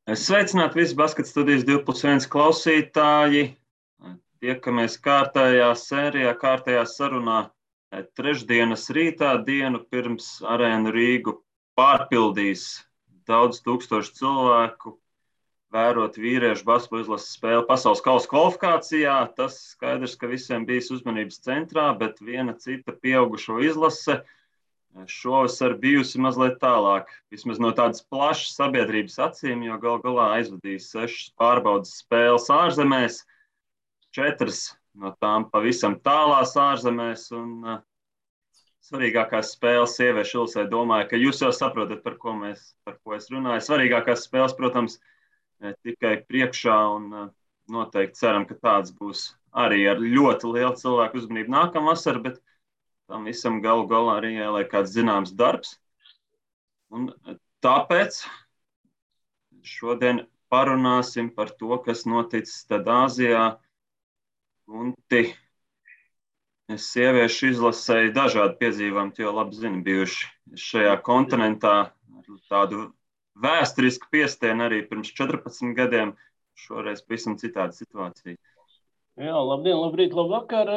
Sveicināti visi Basketa studijas 2+1 klausītāji. Tiekamies kārtējā sērijā, kārtējā sarunā trešdienas rītā, dienu pirms Arēnu Rīgu pārpildīs daudz tūkstošu cilvēku, vērot vīriešu basketbola izlases spēli pasaules kausa kvalifikācijā. Tas skaidrs, ka visiem bijis uzmanības centrā, bet viena cita pieaugušo izlase šovasar bijusi mazliet tālāk, vismaz no tādas plašas sabiedrības acīm, jo gal galā aizvadīs 6 pārbaudas spēles ārzemēs, 4 no tām pavisam tālās ārzemēs, un svarīgākās spēles sieviešu izlasē, domāju, ka jūs jau saprotat, par ko es runāju. Svarīgākās spēles, protams, tikai priekšā, un noteikti ceram, ka tāds būs arī ar ļoti lielu cilvēku uzmanību nākamvasar, bet tam visam galu galā arī jāliek kāds zināms darbs. Un tāpēc šodien parunāsim par to, kas noticis tad Āzijā. Gunti, sieviešu izlasēji dažādi piedzīvojumi, jo labi zini, bijuši šajā kontinentā ar tādu vēsturisku piestienu arī pirms 14 gadiem. Šoreiz pavisam citāda situācija. Jā, labdien, labrīt, labvakar.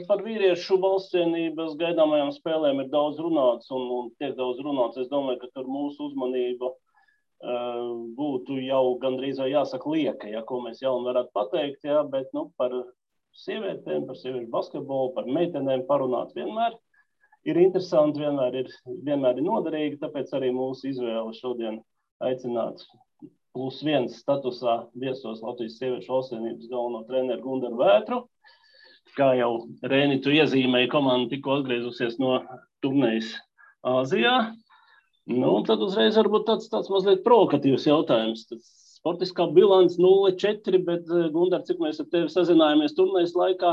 Par vīriešu valstsienības gaidāmajām spēlēm ir daudz runāts un tiek daudz runāts. Es domāju, ka tur mūsu uzmanība būtu jau gandrīz vai jāsaka lieka, ja, ko mēs jaunu varētu pateikt, ja, bet par sievietēm, par sieviešu basketbolu, par meitenēm parunāt vienmēr ir interesanti, vienmēr ir noderīgi, tāpēc arī mūsu izvēle šodien aicināt +1 statusā viesos Latvijas sieviešu valstsienības galveno treneru Gundaru Vētru. Kā jau Rēni, tu iezīmēji, komanda tikko atgriezusies no turnējas Āzijā. Tad uzreiz varbūt tāds mazliet provokatīvs jautājums. Sportiskā bilance 0-4, bet Gundar, cik mēs ar tevi sazinājāmies turnējas laikā,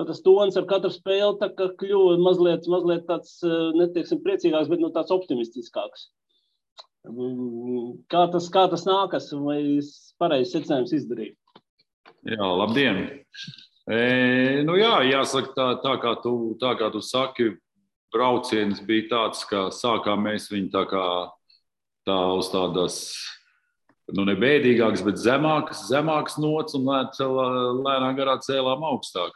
tas tons ar katru spēli tā kā kļuva mazliet tāds, neteiksim priecīgāks, bet tāds optimistiskāks. Kā tas nākas, vai pareizs secinājums izdarīt? Jā, labdien! Jāsaka, tā kā tu saki, brauciens bija tāds, ka sākām mēs viņu tā uz tādas, ne bēdīgākas, bet zemākas nots un lēnā garā cēlām augstāk.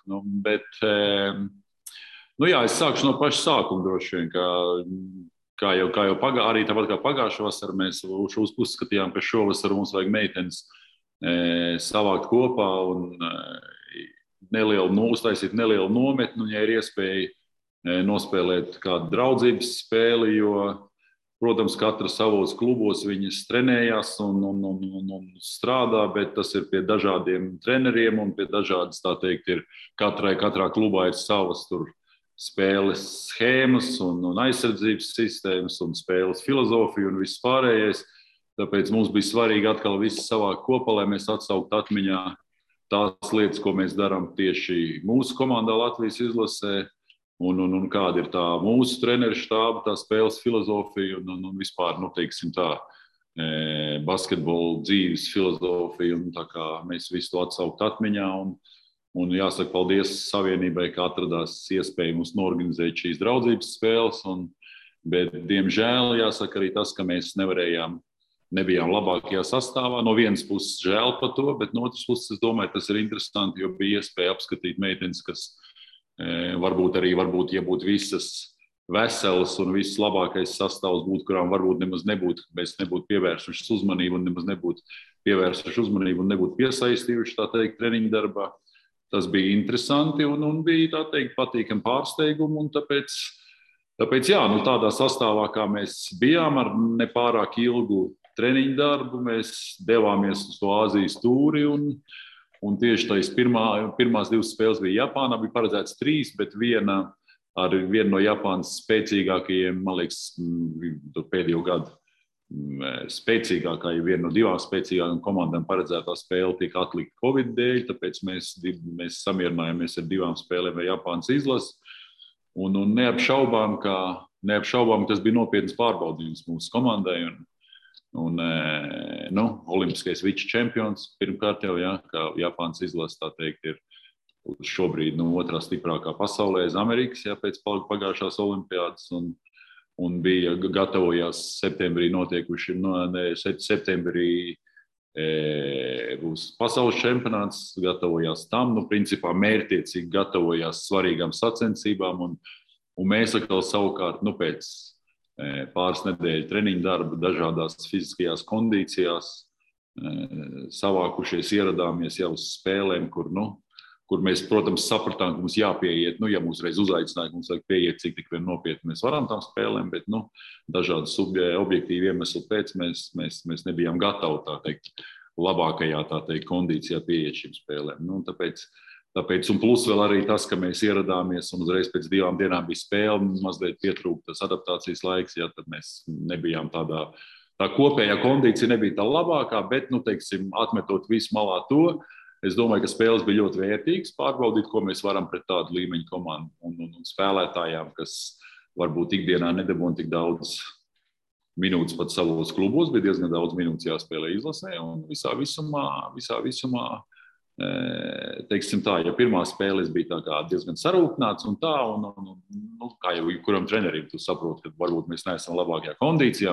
Es sākšu no paša sākuma droši vien, Kā jau arī tāpat kā pagājušā vasara, mēs uzskatījām, ka šovasar mums vajag meitenes savākt kopā un uztaisīt nelielu nometni, ja ir iespēja nospēlēt kādu draudzības spēli, jo, protams, katra savos klubos viņas trenējās un strādā, bet tas ir pie dažādiem treneriem un pie dažādas, tā teikt, katrā klubā ir savas tur spēles schēmas un aizsardzības sistēmas un spēles filozofija un viss pārējais. Tāpēc mums bija svarīgi atkal visu savākt kopā, lai mēs atsauktu atmiņā tās lietas, ko mēs darām tieši mūsu komandā Latvijas izlasē un kāda ir tā mūsu treneru štāba, tā spēles filozofija un vispār, basketbola dzīves filozofija. Un tā kā mēs visu to atsaukt atmiņā un jāsaka paldies Savienībai, ka atradās iespēja mums norganizēt šīs draudzības spēles. Bet, diemžēl, jāsaka arī tas, ka mēs nebijām labākajā sastāvā. No vienas puses žēl par to, bet no otras puses, es domāju, tas ir interesanti, jo bija iespēja apskatīt meitenes, kas varbūt, ja būtu visas veselas un viss labākais sastāvs būtu, kurām varbūt mēs nebūtu pievērsuši uzmanību un nebūtu piesaistījuši, tā teikt, treniņu darbā. Tas bija interesanti un bija, tā teikt, patīkami pārsteigumi. Un tāpēc tādā sastāvā, kā mēs bijām ar nepārāk ilgu treniņu darbu, mēs devāmies uz to Āzijas tūri. Un tieši tās pirmās 2 spēles bija Japānā, bija paredzēts 3, bet viena no Japānas spēcīgākajiem, man liekas, pēdējo gadu spēcīgākā, ja viena no 2 spēcīgākajām komandām paredzētā spēle tika atlikta Covid dēļ, tāpēc mēs samierinājāmies ar 2 spēlēm ar Japānas izlasi. Un neapšaubām, ka tas bija nopietns pārbaudījums mūsu komandai. Olimpiskais vičečempions pirmkārt jau, ka Japānas izlase, tā teikt, ir šobrīd otrā stiprākā pasaulē aiz Amerikas, pēc pagājušās olimpiādas. un bija gatavojās septembrī notiekuši, septembrī būs pasaules čempionāts, gatavojās tam, principā mērķtiecīgi gatavojās svarīgām sacensībām, un mēs atkal savukārt, pēc pāris nedēļu treniņu darba dažādās fiziskajās kondīcijās savākušies, ieradāmies jau uz spēlēm, kur mēs, protams, sapratām, ka mums jāpieiet, ja mūs reiz uzaicināja, mums vajag pieiet, cik tik vien nopietni mēs varam tām spēlēm, bet, dažādu objektīvu iemeslu pēc mēs nebijām gatavi, tā teikt, labākajā, tā teikt, kondīcijā pieiet šīm spēlēm. Tāpēc, un plus vēl arī tas, ka mēs ieradāmies un uzreiz pēc 2 dienām bija spēle, mazliet pietrūktas adaptācijas laiks, tad mēs nebijām tā kopējā kondīcija nebija tā labākā, bet, teiksim, atmetot visu malā to, es domāju, ka spēles bija ļoti vērtīgas, pārbaudīt, ko mēs varam pret tādu līmeņu komandu un spēlētājām, kas varbūt ikdienā nedabūna tik daudz minūtes pat savos klubos, bija diezgan daudz minūtes jāspēlē izlasē, un visā visumā, teiksim tā, ja pirmā spēles bija tā kā diezgan sarūpnāts un tā, un kā jau kuram trenerim, tu saproti, ka varbūt mēs neesam labākajā kondīcijā,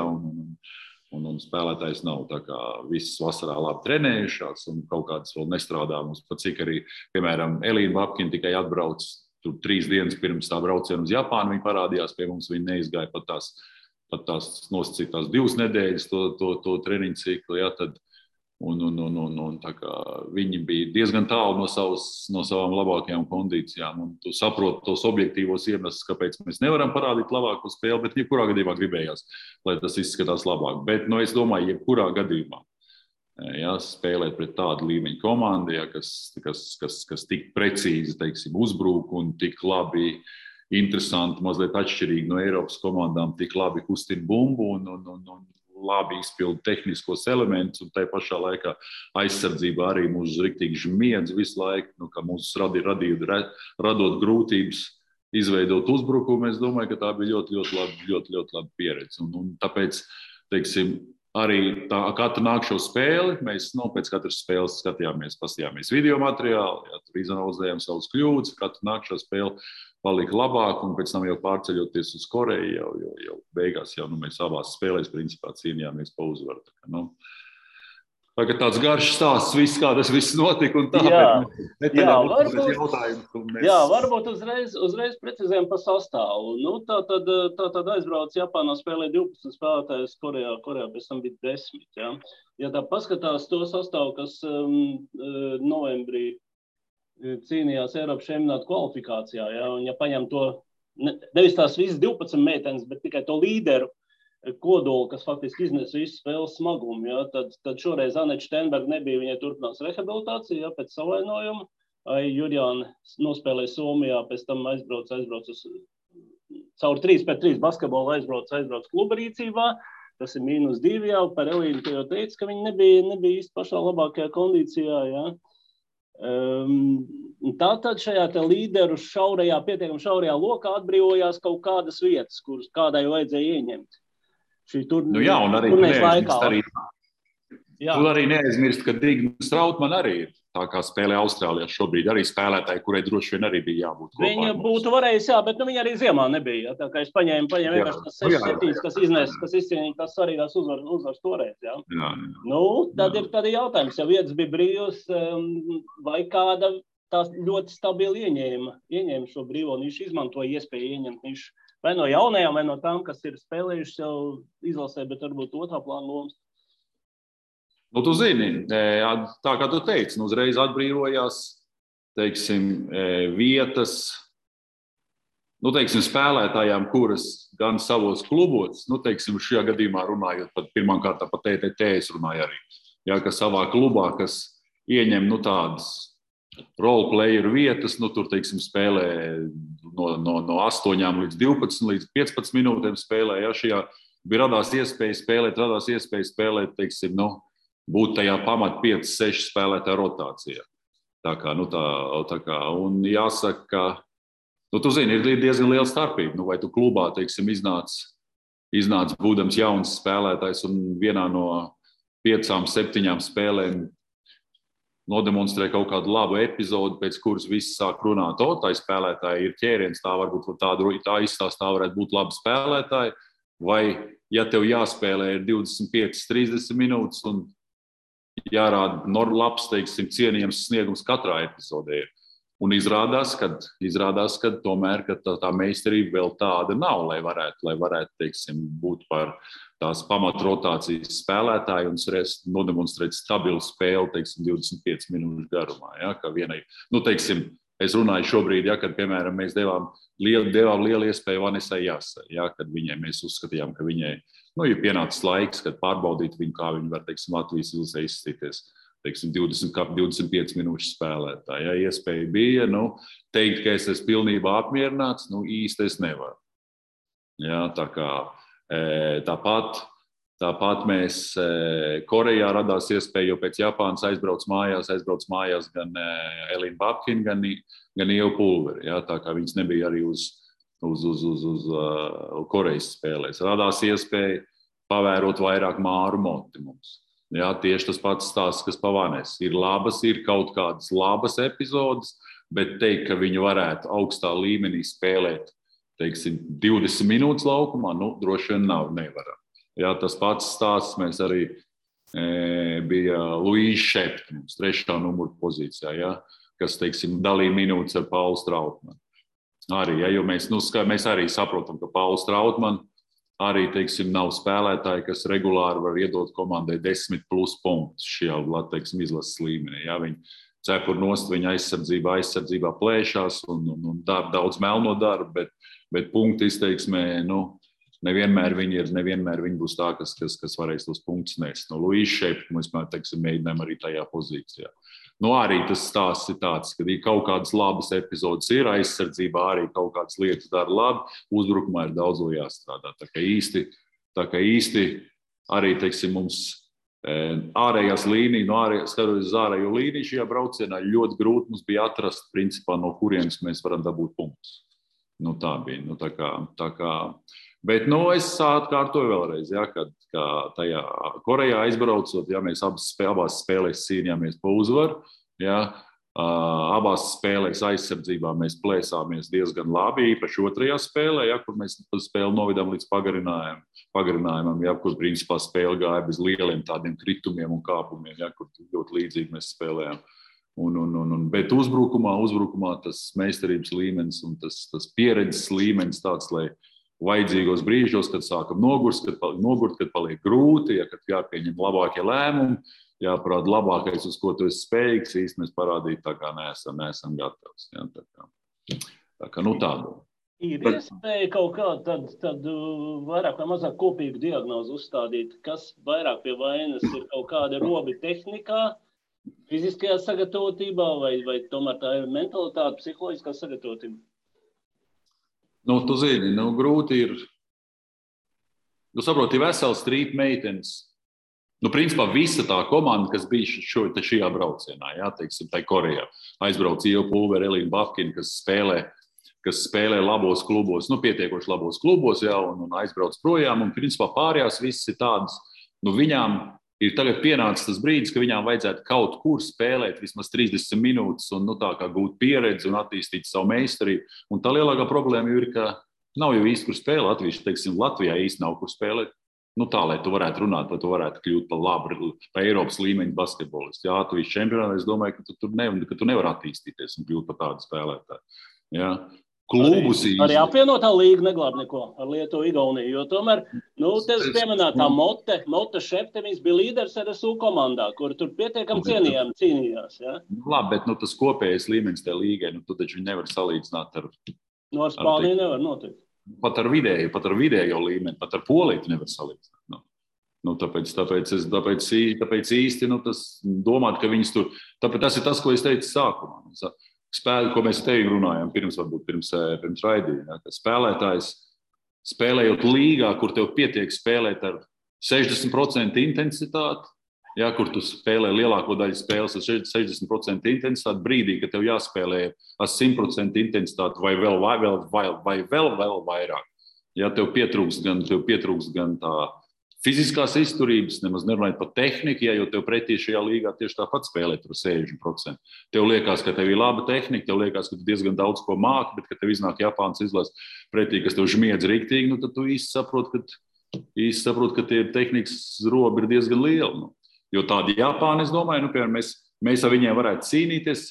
un spēlētājs nav tā kā visas vasarā labi trenējušās un kaut kādas vēl nestrādā mums, pat cik arī, piemēram, Elīna Babkina tikai atbrauc tur 3 dienas pirms tā brauciena uz Japānu, viņa parādījās pie mums, viņa neizgāja pat tās nosacītās 2 nedēļas to treniņu ciklu, tad un tā kā viņi bija diezgan tālu no savām labākajām kondīcijām, un tu saproti tos objektīvos iemeslus, kāpēc mēs nevaram parādīt labāko spēli, bet jebkurā gadījumā gribējās, lai tas izskatās labāk. Bet, es domāju, jebkurā gadījumā, spēlēt pret tādu līmeņu komandu, kas tik precīzi, teiksim, uzbrūk un tik labi, interesanti, mazliet atšķirīgi no Eiropas komandām, tik labi kustina bumbu un labi izpildu tehniskos elementus, un tai pašā laikā aizsardzībā arī mūs riktīgi žmiedz visu laiku, ka mūs radot grūtības izveidot uzbrukumu. Es domāju, ka tā bija ļoti laba pieredze. Un tāpēc, teiksim, arī katru nākšo spēli, mēs pēc katras spēles paskatījāmies video materiālu, tur izanalizējām savus kļūdas, katru nākšo spēli palika labāk, un pēc tam jau pārceļoties uz Koreju, jau beigās mēs abās spēlēs principā cīnījāmies pa uzvaru. Tagad tāds garš stāsts, kā tas viss notika un tā, varbūt uzreiz precizējam par sastāvu. Tā aizbrauc Japānā, spēlē 12 spēlētājus, Korejā pēc tam bija 10. Ja, ja tā paskatās to sastāvu, kas novembrī cīnījās Eiropas čempionāta kvalifikācijā, un ja paņem to, nevis tās visas 12 meitenes, bet tikai to līderu kodolu, kas faktiski iznes visu spēles smagumu, tad šoreiz Aneta Steinberga nebija, viņai turpinās rehabilitācija, pēc savainojuma, Jurjāna nospēlēja Somijā, pēc tam aizbrauc uz caur 3-3 basketbolu aizbrauc kluba rīcībā, tas ir -2 jau, par Elīnu, ka jau teica, ka viņi nebija īsti pašā labākajā kondīcijā, Tātad šajā līderu pietiekami šaurajā lokā atbrīvojās kaut kādas vietas, kuras kādai vajadzēja ieņemt. Un arī neaizmirst, ka Digna Strautmane arī ir tā kā spēlē Austrālijā šobrīd, arī spēlētāji, kurai droši vien arī bija jābūt kopā. Viņa būtu varējusi, bet viņa arī ziemā nebija. Tā kā es paņēmu vienkārši tas 6-7, kas izcīnīja tās svarīgās uzvaras toreiz. Tad ir jautājums, ja vietas bija brīvas, vai kāda tās ļoti stabili ieņēma šo brīvo nišu, izmantoja iespēju ieņemt nišu. Vai no jaunajām, vai no tām, kas ir spēlējušas jau izlasē, bet varbūt otrā plāna lomas. Tu zini, tā kā tu teici, uzreiz atbrīvojās, teiksim, vietas, teiksim, spēlētājām, kuras gan savos klubos, teiksim, šajā gadījumā runājot pat pirmkārt par TTT, es runāju arī, ka savā klubā, kas ieņem, tādas roleplayeru vietas, tur, teiksim, spēlē no 8 līdz 12 līdz 15 minūtēm spēlē, šajā bija radās iespēja spēlēt, teiksim, būt tajā pamat 5-6 spēlētāju rotācijā. Tā kā, un jāsaka, ka, tu zini, ir diezgan liela starpība, vai tu klubā, teiksim, iznāc būdams jauns spēlētājs un vienā no 5-7 spēlēm nodemonstrē kaut kādu labu epizodu, pēc kuras visi sāk runāt, tai spēlētāji ir ķēriens, tā varbūt tā izstāstā varētu būt labi spēlētāji, vai, ja tev jāspēlē 25-30 minūtes un jārāda labs, teiksim, cienījams sniegums katrā epizodē. Un izrādās, ka tomēr ka tā meistarība vēl tāda nav, lai varētu teiksim, būt par tās pamatrotācijas spēlētāju un nodemonstrēt stabilu spēli, teiksim, 25 minūšu garumā. Ja, ka vienai, teiksim, es runāju šobrīd, ja, kad, piemēram, mēs devām lielu iespēju Vanesai Jāsai, ja, kad viņai mēs uzskatījām, ka viņai ir pienācis laiks, kad pārbaudīt viņu, kā viņi var, teiksim, Latvijas izlasē izstīties. Teiksim, 25 minūšu spēlētāji. Ja iespēja bija, teikt, ka es esmu pilnībā apmierināts, īsti es nevaru. Ja, tāpat mēs Korejā radās iespēja, jo pēc Japānas aizbrauc mājās gan Elīna Babkina, gan Ieva Pulveri. Ja, tā kā viņas nebija arī uz Korejas spēlēs. Radās iespēja pavērot vairāk Māru Moti mums. Jā, tieši tas pats stāsts, kas pavānēs. Ir kaut kādas labas epizodes, bet teikt, ka viņi varētu augstā līmenī spēlēt, teiksim, 20 minūtes laukumā, droši vien nevaram. Jā, tas pats stāsts mēs arī bija Luīša Šepta, 3. numura pozīcijā, jā, kas, teiksim, dalīja minūtes ar Paulu Strautmanu. Arī, jo mēs arī saprotam, ka Paulu Strautmanu arī, teiksim, nav spēlētāji, kas regulāri var iedot komandai 10+ punktus šajā, teiksim, izlases līmenī. Ja, viņi cepur nost, viņa aizsardzībā plēšās un daudz melno darbu, bet punktu izteiksmē, nevienmēr viņi būs tā, kas varēs tos punktus nest. Luīša Šepta mēs, teiksim, mēģinām arī tajā pozīcijā. Arī tas stāsts ir tāds, ka kaut kādas labas epizodes ir, aizsardzībā arī kaut kādas lietas dara labi, uzbrukumā ir daudz vēl jāstrādā. Tā kā īsti arī, teiksim, mums ārējās līnijas, skatoties uz ārējo līniju šajā braucienā, ļoti grūti mums bija atrast, principā, no kurienes mēs varam dabūt punktus. Tā bija. Bet es atkārtoju vēlreiz, ja, kad tajā Korejā aizbraucot, ja mēs abās spēlēs cīnījāmies pa uzvaru, ja, abās spēlēs aizsardzībā mēs plēsāmies diezgan labi, īpaši otrajā spēlē, ja, kur mēs spēli novidām līdz pagarinājumam, ja, kur principā spēle gāja bez lieliem tādiem kritumiem un kāpumiem, ja, kur ļoti līdzīgi mēs spēlējām. Bet uzbrukumā tas meistarības līmenis un tas pieredzes līmenis tāds, lai vajadzīgos brīžos, kad sākam nogurt, kad paliek grūti, ja, kad jāpieņem labākie lēmumi, jāparāda labākais, uz ko tu esi spējīgs, īsti mēs parādīt tā kā neesam gatavs. Ja, tā kā tādu. Ir iespēja kaut kādu tad vairāk vai mazāk kopīgu diagnozu uzstādīt, kas vairāk pie vainas ir kaut kāda robi tehnikā, fiziskajā sagatavotībā vai tomēr tā ir mentalitāte, psiholoģiskā sagatavotība? Tu zini, grūti ir. Saproti, vesels strīp meitenes. Principā visa tā komanda, kas bija šajā braucienā, jā, teiksim, tai Korejā. Aizbrauc Ieva Pulveri, Elīna Babkina, kas spēlē labos klubos, pietiekoši labos klubos, jā, un aizbrauc projām. Un principā pārējās visas ir tādas, viņām ir tagad pienācis tas brīdis, ka viņām vajadzētu kaut kur spēlēt vismaz 30 minūtes un tā kā gūt pieredzi un attīstīt savu meistarību. Un tā lielākā problēma ir, ka nav jau īsti kur spēlēt. Latvijā īsti nav kur spēlēt. Tā, lai tu varētu runāt, lai tu varētu kļūt par labu, par Eiropas līmeņa basketbolistu. Jā, Latvijas čempionātā es domāju, ka tu nevari attīstīties un kļūt par tādu spēlētāju. Jā. Arī apvienotā līga neglāb neko ar Lietuvu, Igauniju, jo tomēr, tevis pieminētā Mote Šepte, viņas bija līderis RSU komandā, kur tur pietiekami cīnījās, ja? Labi, bet tas kopējais līmenis tajā līgai, tu taču nevar salīdzināt ar... Ar Spāniju nevar notikt. Pat ar vidējo līmeni, pat ar Poliju nevar salīdzināt. Tāpēc īsti, tas domāt, ka viņas tur... Tāpēc tas ir tas, ko es teicu sākumā. Ko mēs tevi runājām pirms raidījuma, ja, ka spēlētājs spēlējot līgā, kur tev pietiek spēlēt ar 60% intensitāti, ja, kur tu spēlē lielāko daļu spēles ar 60% intensitāti, brīdī, kad tev jāspēlē ar 100% intensitāti vai vēl vairāk. Ja, tev pietrūkst gan tā fiziskās izturības, nemaz nerunājot par tehniku, ja, jo tev pretī šajā līgā tieši tāpat spēlē tur 60%. Tev liekas, ka tev ir laba tehnika, tev liekas, ka tu diezgan daudz ko māki, bet, kad tev iznāk Japānas izlase pretī, kas tev žmiedz riktīgi, tad tu īsti saproti, īsti saprotu, ka tie tehnikas robi ir diezgan lieli. Nu. Jo tādi Japāni, es domāju, nu, piemēram, mēs ar viņiem varētu cīnīties,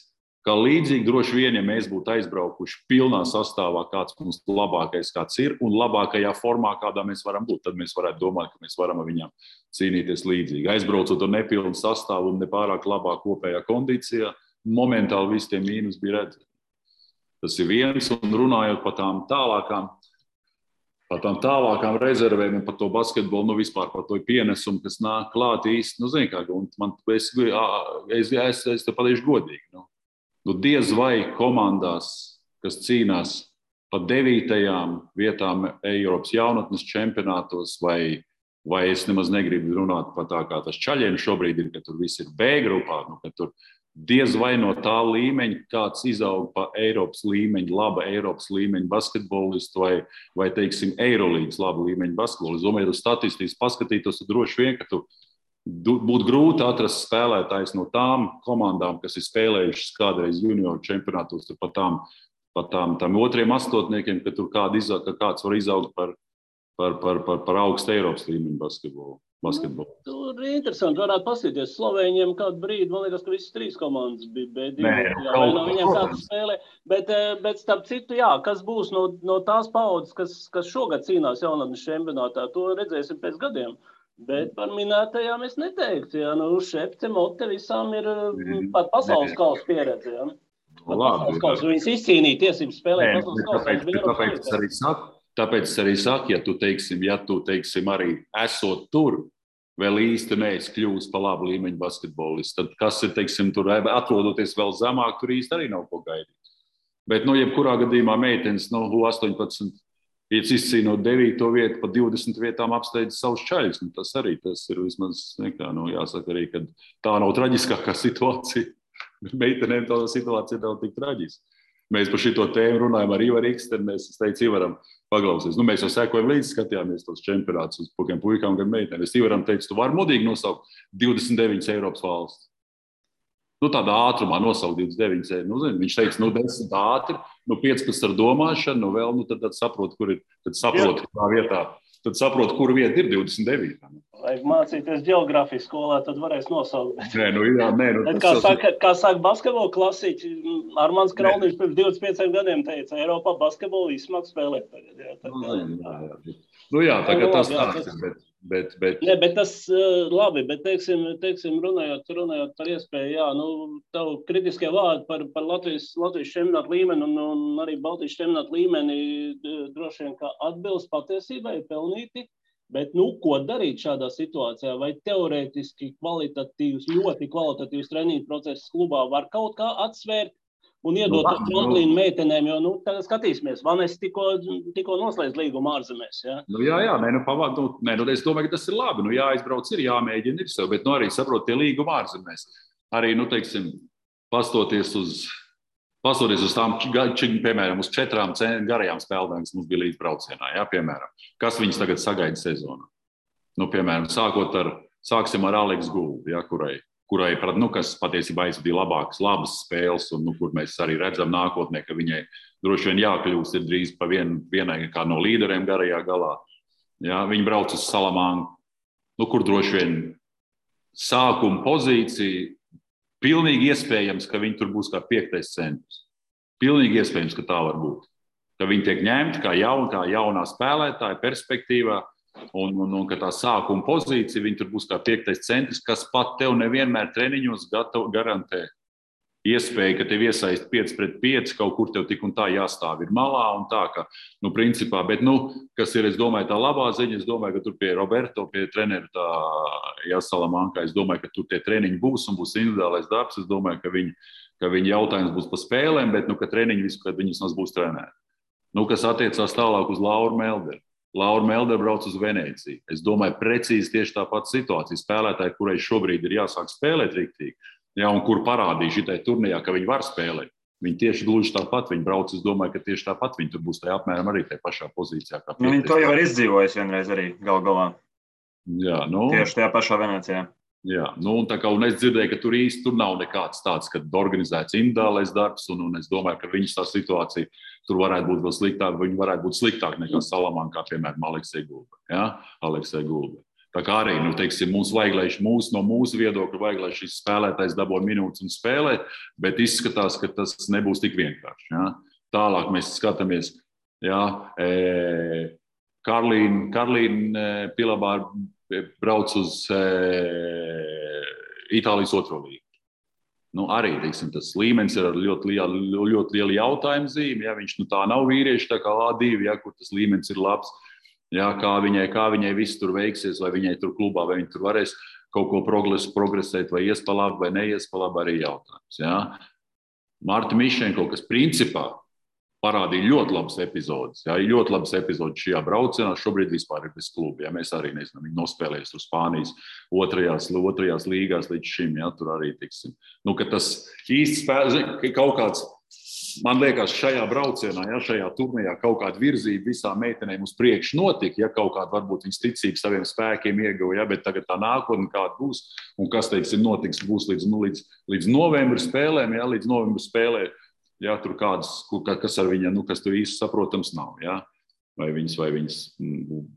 kā līdzīgi droši vien, ja mēs būtu aizbraukuši pilnā sastāvā, kāds mums labākais kāds ir, un labākajā formā, kādā mēs varam būt, tad mēs varētu domāt, ka mēs varam ar viņiem cīnīties līdzīgi. Aizbraucot ar nepilnu sastāvu un nepārāk labā kopējā kondīcijā, momentāli visi tie mīnus bija redzami. Tas ir viens, un runājot par tām tālākām rezervēm un par to basketbolu, nu vispār par to pienesumu, kas nāk klāt īsti, nu zini kā, un es te pateikšu godīgi, nu diez vai komandās, kas cīnās par 9. vietām Eiropas jaunatnes čempionātos, vai es nemaz negribu runāt par tā, kā tas čaļiem šobrīd ir, ka tur viss ir B grupā, nu, ka tur diez vai no tā līmeņa kāds izaug pa Eiropas līmeņa, laba Eiropas līmeņa basketbolistu vai teiksim, Eirolīgas laba līmeņa basketbolistu. Es domāju, ja tu statistiski paskatītos, tad droši vien, ka tu būtu grūti atrast spēlētājs no tām komandām, kas ir spēlējušas kādreiz junioru čempionātos, pa tām otriem astotniekiem, ka tur kāds var izaugt par augstu Eiropas līmeņu basketbolu. Tur ir interesanti, varētu paskatīties. Slovēņiem kādu brīdi, man liekas, ka visas 3 komandas bija B2. Vai no viņiem kāds spēlē. Bet starp citu, jā, kas būs no tās paudzes, kas šogad cīnās jaunatnes čempionātā, to redzēsim pēc gadiem. Bet par minētajām es neteiktu. Jā, Šepce, Mote visām ir pat pasaules kausa pieredze. Jā. Pasaules kausa. Viņas izcīnīja tiesības spēlēt pasaules kausa. Tāpēc es arī saku, ja tu teiksim, arī esot tur, vēl īsti neesi kļūst par labu līmeņu basketbolistu, tad kas ir, teiksim, tur atrodoties vēl zemāk, tur īsti arī nav ko gaidīt. Bet, jebkurā gadījumā meitenes, 18, izcīnot 9. vietu, pa 20 vietām apsteidz savus čaļus. Tas ir vismaz, jāsaka arī, ka tā nav traģiskākā situācija. Meitenēm tā situācija nav tik traģiska. Mēs par šito tēmu runājam ar Ivaru Ikstenu. Es teicu Ivaram, paklausies. Mēs jau sekojam līdzi, skatījāmies tos čempionātus uz gan puikām, gan meitenēm. Es Ivaram teicu, tu vari modīgi nosaukt 29 Eiropas valsts. Tādā ātrumā nosaukt 29. Viņš teica, 10 ātri, 15 ar domāšanu, vēl, tad saprot, kur ir, tad saprot, kurā vietā. Tad saprot, kur vieta ir 29. Vajag mācīties ģeogrāfijas skolā, tad varēs nosaukt. Bet kā saka basketbola klasiķi, Armāns Krauniņš pirms 25 gadiem teica, Eiropā basketbolu izsmāk spēlēt tagad. Tagad tas tāds ir, bet tas labi, bet teiksim runājot par iespēju, tavu kritiskie vārdi par Latvijas čempionātu līmeni un arī Baltijas čempionātu līmeni droši vien kā atbilst patiesībai, pelnīti, bet ko darīt šādā situācijā? Vai teorētiski ļoti kvalitatīvs treniņu process klubā var kaut kā atsvērt un iedot tramplīnu meitenēm, jo, tagad skatīsimies, Vanes tikko noslēdz līgumu ārzemēs, jā? Es domāju, ka tas ir labi, jāizbrauc ir, jāmēģina ir sev, bet, arī saprot tie līgumu ārzemēs. Arī, teiksim, pastoties uz tām, piemēram, uz 4 garajām spēlēm, kas mums bija līdz braucienā, jā, piemēram, kas viņas tagad sagaida sezonā. Piemēram, sāksim ar Aleksu Gulbi, jā, kurai, kas patiesībā aizvadīja labas spēles, un kur mēs arī redzam nākotnē, ka viņai droši vien jākļūst ir drīz pa vienai kā no līderiem garajā galā. Jā, viņi brauc uz Salamanku, kur droši vien sākuma pozīcija, pilnīgi iespējams, ka viņi tur būs kā 5. centrs. Pilnīgi iespējams, ka tā var būt. Ka viņi tiek ņemti kā jaunā spēlētāja perspektīvā, un ka tā sākuma pozīcija, viņi tur būs kā 5. centrs, kas pat tev nevienmēr treniņos garantē iespēju, ka tev iesaist 5-5, kaut kur tev tik un tā jāstāv ir malā un tā, ka, principā, bet, kas ir, es domāju, tā labā ziņa, es domāju, ka tur pie Roberto, pie treneru tā Salamanka, es domāju, ka tur tie treniņi būs un būs individuālais darbs, es domāju, ka viņi jautājums būs par spēlēm, bet, ka treniņi visu, kad viņas mums būs trenēti. Kas attiecās tālāk uz Lauru Melderu. Laura Melder brauc uz Venēciju. Es domāju, precīzi tieši tāpat situācija. Spēlētāji, kurai šobrīd ir jāsāk spēlēt riktīgi, un kur parādīja šitai turnīrā, ka viņi var spēlēt. Viņi tieši gluži tāpat, viņi brauc, es domāju, ka tieši tāpat viņi tur būs tajā apmēram arī tajā pašā pozīcijā. Viņi to jau ir izdzīvojuši vienreiz arī galā. Jā, Tieši tajā pašā Venēcijā. Jā, un es dzirdēju, ka tur nav nekāds tāds, kad organizēts individuālais darbs, un es domāju, ka viņas tā situācija tur varētu būt vēl sliktāk, viņi varētu būt sliktāk nekā Salamankā, piemēram, Aleksej Gulbe. Tā kā arī, mums vajag, lai no mūsu viedokļa vajag, lai šis spēlētājs dabū minūtes un spēlē, bet izskatās, ka tas nebūs tik vienkārši. Ja? Tālāk mēs skatāmies, Karlīna Pilabāra brauc uz Itālijas otro līgu. Arī, tas līmenis ir ar ļoti lielu jautājumu zīmi. Ja, viņš tā nav vīrieši, tā kā A2, ja, kur tas līmenis ir labs. Ja, kā viņai viss tur veiksies, vai viņai tur klubā, vai viņa tur varēs kaut ko progresēt, vai ies pa labi, vai neies pa labi, arī jautājums. Ja. Marta Mišenko, kas principā parādīja ļoti labas epizodes. Jā, ļoti labas epizodes šajā braucienā. Šobrīd vispār ir bez kluba. Jā, mēs arī nezinām, viņi nospēlējas tur Spānijas otrajās līgās līdz šim. Jā, tur arī tiksim. Ka tas īsti spēlē, kaut kāds, man liekas, šajā braucienā, jā, šajā turnīrā kaut kāda virzība visām meitenēm uz priekšu notika. Ja, kaut kāda varbūt viņas ticība saviem spēkiem ieguva, ja, bet tagad tā nākotne kāda būs un kas, notiks, būs līdz novembra spēlēm, jā, līdz novembra spēlēm. Jā, tur kas ar viņu, kas tur īsti saprotams nav. Jā? Vai viņas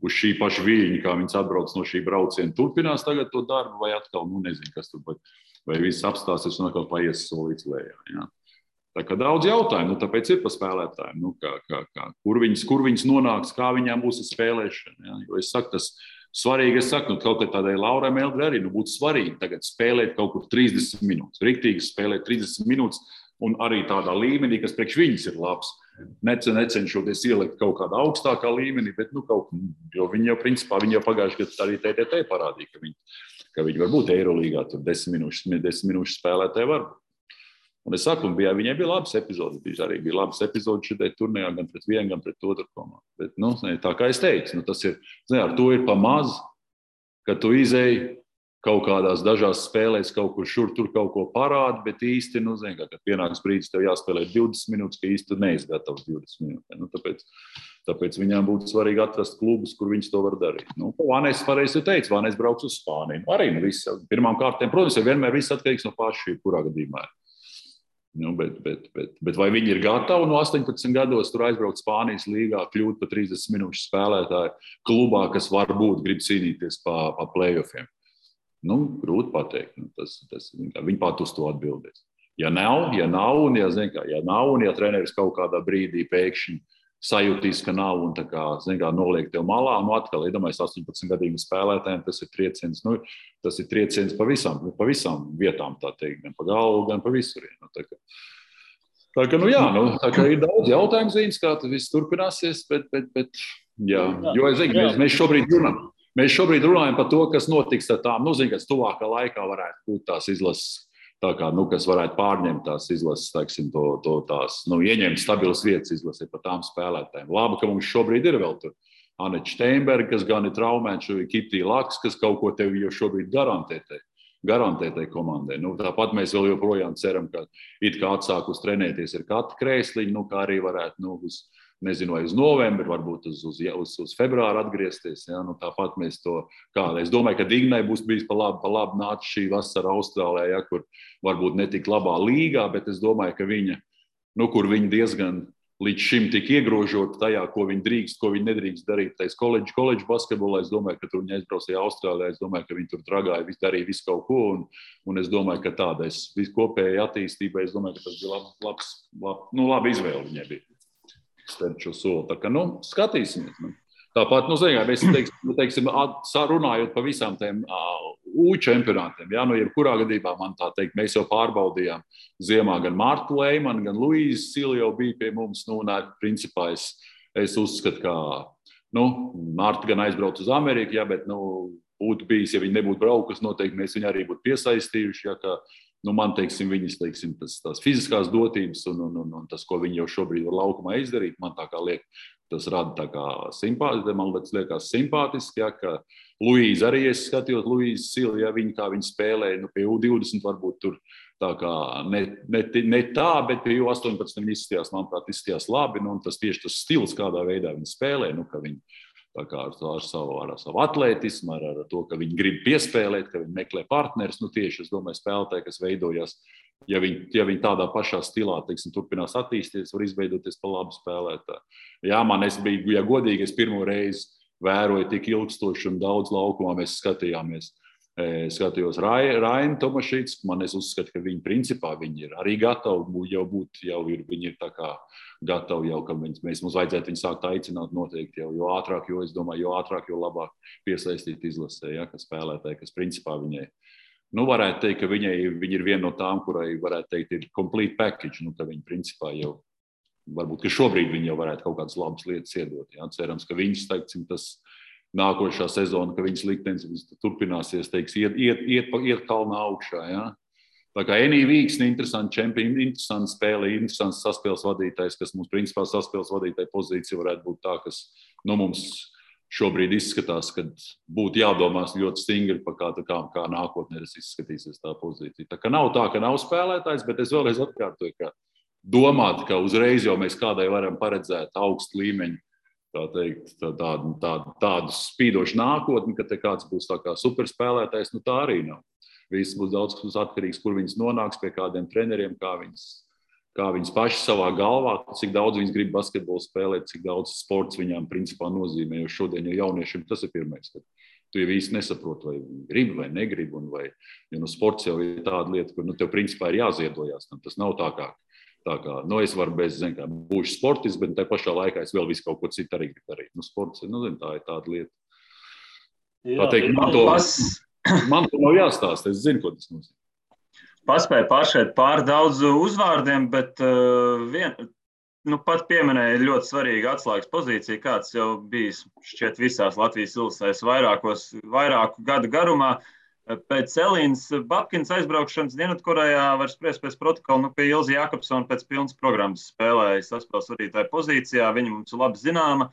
uz šī paša viļņa, kā viņas atbrauc no šī brauciena, turpinās tagad to darbu, vai atkal, nezinu, kas tur, vai viss apstāsies un atkal paies solīts lejā. Jā? Tā kā daudz jautājumu, tāpēc ir pa spēlētājiem, kur viņas nonāks, kā viņām būs spēlēšana. Jā? Jo es saku, tas svarīgi, kaut kā tādai Laurai Meldrei arī būtu svarīgi tagad spēlēt kaut kur 30 minūtes, riktīgi spēlēt 30 minūtes, un arī tādā līmenī, kas priekš viņas ir labs. Necenšoties ielikt kaut kādā augstākā līmenī, bet jo viņi jau principā, viņi jau pagājuši gadu arī TTT parādīja, ka viņi var būt Eirolīgā, tur 10 minūšu spēlētāji var būt. Un es saku, viņai bija labas epizodes, arī bija labas epizodes šitai turnīrā, gan pret vienu, gan pret otru komandu. Bet, tā kā es teicu, tas ir, ar to ir pa maz, ka tu izēji kaut kādās dažās spēlēs kaut kur šur tur kaut ko parāda, bet īsti, kad pienāks brīdis, tev jāspēlē 20 minūtes, ka īsti tu neesi gatavs 20 minūtes. Tāpēc viņām būtu svarīgi atrast klubus, kur viņas to var darīt. Vānēs pareizi teica, Vānēs brauks uz Spāniju. Arī viss. Pirmām kārtēm, protams, vienmēr viss atkarīgs no paša, kurā gadījumā. Bet vai viņi ir gatavi no 18 gados tur aizbraukt Spānijas līgā, kļūt pa 30 minūšu spēlētāju klubā, kas varbūt grib cīnīties pa play-offiem? Grūti pateikt. Viņi pat uz to atbildēs. Ja nav, un ja treneris kaut kādā brīdī pēkšņi sajūtīs, ka nav un noliek tev malā, atkal, iedomājies 18 gadīgu spēlētājiem, tas ir trieciens. Tas ir trieciens pa visām vietām, tā teikt, gan pa galvu, gan pa visur. Tā kā ir daudz jautājumu zīmes, kā tas viss turpināsies, bet jā. Jo es zinu, mēs šobrīd runājam par to, kas notiks ar tām, kas tuvākā laikā varētu būt tās izlases, kas varētu pārņemt tās izlases, tās, ieņemt stabilas vietas izlasē par tām spēlētājiem. Labi, ka mums šobrīd ir vēl tur Aneta Steinberga, kas gan ir traumēta, Kitija Laks, kas kaut ko tev jau šobrīd garantē tai komandai. Tāpat mēs vēl joprojām ceram, ka it kā atsākus trenēties ir Kata Krēsliņa, kā arī varētu, nezinu, vai uz novembri, varbūt uz februāru atgriezties. Ja? Tāpat mēs to kādā. Es domāju, ka Dignai būs bijis pa labi nāca šī vasara Austrālijā, ja, kur varbūt netik labā līgā, bet es domāju, ka viņa, kur viņa diezgan līdz šim tik iegrožota tajā, ko viņa drīkst, ko viņa nedrīkst darīt tais koledžu basketbolā. Es domāju, ka tur viņa aizbraucīja Austrālijā, es domāju, ka viņa tur dragāja, darīja visu kaut ko, un es domāju, ka tādais kopējai attīstībai, es domāju, ka tas bija labi izvēle viņai bija. Šo soli. Tā kā, skatīsimies. Tāpat, mēs teiksim, runājot par visām tiem U-čempionātiem, ja, jebkurā gadījumā man tā teikt, mēs jau pārbaudījām ziemā gan Martu Leimanu, gan Luīzu Sili jau bija pie mums, principā es uzskatu, ka, Marta gan aizbrauc uz Ameriku, ja, bet, būtu bijis, ja viņi nebūtu braukusi, noteikti mēs viņu arī būtu piesaistījuši, ja, ka, man, viņas, tās fiziskās dotības un tas, ko viņi jau šobrīd var laukumā izdarīt, man tā kā liek, tas rada tā kā simpātiski, man liekas simpātiski, ja, ka Luīza arī, es skatījos Luīza Sili, ja kā viņa spēlēja, pie U20 varbūt tur tā kā ne tā, bet pie U18 viņa izskatījās, manuprāt, izskatījās labi, un tas tieši tas stils, kādā veidā viņa spēlē, ka viņa Tā kā ar savu atlētismu, ar to, ka viņi grib piespēlēt, ka viņi meklē partnerus. Tieši, es domāju, spēlētāji, kas veidojas, ja viņi tādā pašā stilā, teiksim, turpinās attīstīties, var izveidoties par labu spēlētāju. Jā, es biju, ja godīgi, es pirmo reizi vēroju tik ilgstoši un daudz laukumā mēs skatījāmies. Skatījos Rainu Tomašīts, es uzskatu, ka viņi principā viņi ir arī gatavi viņi ir tā kā gatavi jau, ka mums vajadzētu viņu sākt aicināt noteikti jo ātrāk, jo es domāju, jo ātrāk, jo labāk piesaistīt izlasē, ja, ka spēlētāji, kas principā viņai, varētu teikt, ka viņi ir viena no tām, kurai varētu teikt ir complete package, ka viņi principā jau, varbūt, ka šobrīd viņi jau varētu kaut kādas labas lietas iedot, ja, cerams, ka viņus, teiksim, tas nākošā sezona, ka viņas liktenis turpināsies, teiks, iet kalnā augšā. Ja? Tā kā Enī Vīksni, interesanti čempioni, interesanti spēle, interesants saspēles vadītājs, kas mums principā saspēles vadītāja pozīcija varētu būt tā, kas mums šobrīd izskatās, kad būtu jādomās ļoti stingri par kā nākotnē izskatīsies tā pozīcija. Tā kā nav tā, ka nav spēlētājs, bet es vēlreiz atkārtoju, ka domāt, ka uzreiz jau mēs kādai varam paredzēt augstu līmeņu, tādu spīdošu nākotni, ka te kāds būs tā kā superspēlētājs, tā arī nav. Viss būs daudz atkarīgs, kur viņas nonāks, pie kādiem treneriem, kā viņas paši savā galvā, cik daudz viņas grib basketbolu spēlēt, cik daudz sports viņām principā nozīmē, jo šodien jau jauniešiem tas ir pirmais, ka tu jau īsti nesaproti, vai gribi vai negribi, jo sports jau ir tāda lieta, kur tev principā ir jāziedojās, tas nav tā kā es varu būšu sportists, bet tā pašā laikā es vēl visu kaut ko citu arī gribu darīt. Sports, tā ir tāda lieta. Jā, teikt, man to nav jāstāsta, es zinu, ko tas nozīmē. Paspēju pāršēt pār daudz uzvārdiem, bet pat pieminēja ļoti svarīga atslēgas pozīcija, kāds jau bijis šķiet visās Latvijas ilsēs vairāku gadu garumā. Pēc Elīnas Babkinas aizbraukšanas Dienvidkorejā var spriest pēc protokola, pie Ilzi Jakobsona pēc pilnas programmas spēlēja saspēles vadītāja pozīcijā. Viņa mums ir labi zināma.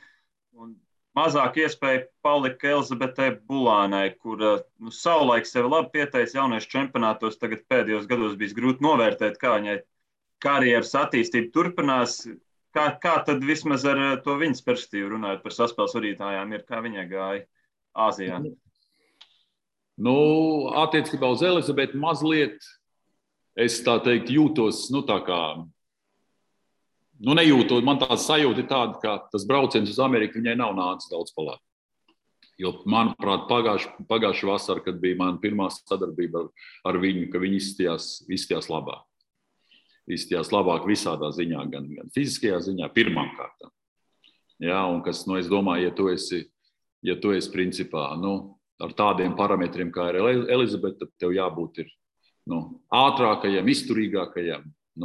Un mazāk iespēja palika Elizabetei Bulānai, kur savulaik sevi labi pieteica jauniešu čempionātos. Tagad pēdējos gados bijis grūti novērtēt, kā viņai karjeras attīstība turpinās. Kā tad vismaz ar to viņas perspektīvu runājot par saspēles vadītājām ir, kā viņai gāja Āzijā? Attiecībā uz Elizabeti mazliet, es tā teikt, jūtos, nejūtot, man tā sajūta ir tāda, ka tas brauciens uz Ameriku viņai nav nācis daudz palāk. Jo, manuprāt, pagājušā vasara, kad bija mana pirmā sadarbība ar viņu, ka viņi izstījās labāk. Izstījās labāk visādā ziņā, gan fiziskajā ziņā, pirmām kārtām. Jā, un kas, es domāju, ja tu esi principā, ar tādiem parametriem, kā ir Elizabete, tad tev jābūt ir, ātrākajam, izturīgākajam,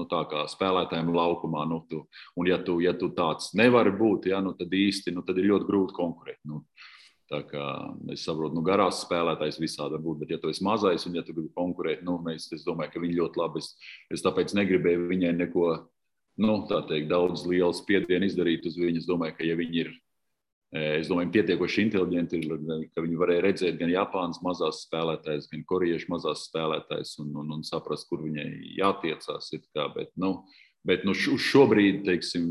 tā kā spēlētājiem laukumā. Un ja tu tāds nevari būt, tad īsti, tad ir ļoti grūti konkurēt. Tā kā es saprotu, garās spēlētājs visādi būt, bet ja tu esi mazais un ja tu gribi konkurēt, es domāju, ka viņi ļoti labi. Es tāpēc negribēju viņai neko, tā teikt, daudz lielu spiedienu izdarīt uz viņu. Es domāju, ka ja viņi ir, pietiekoši inteliģenti, ka viņi varēja redzēt gan Japānas mazās spēlētājas, gan koriešu mazās spēlētājas un saprast, kur viņai jātiecās. Bet uz šobrīd, teiksim,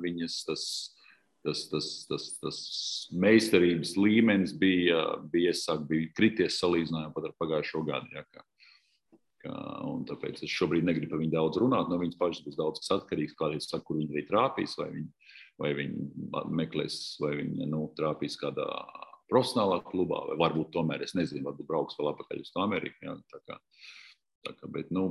viņas tas meistarības līmenis bija krities salīdzinājumā pat ar pagājušo gadu. Un tāpēc es šobrīd negribu par viņu daudz runāt. No viņas pašas būs daudz kas atkarīgs, kādreiz saka, kur viņi arī trāpīs, vai viņi meklēs, vai viņi trāpīs kādā profesionālā klubā, vai varbūt tomēr, es nezinu, varbūt brauks vēl atpakaļ uz Ameriku.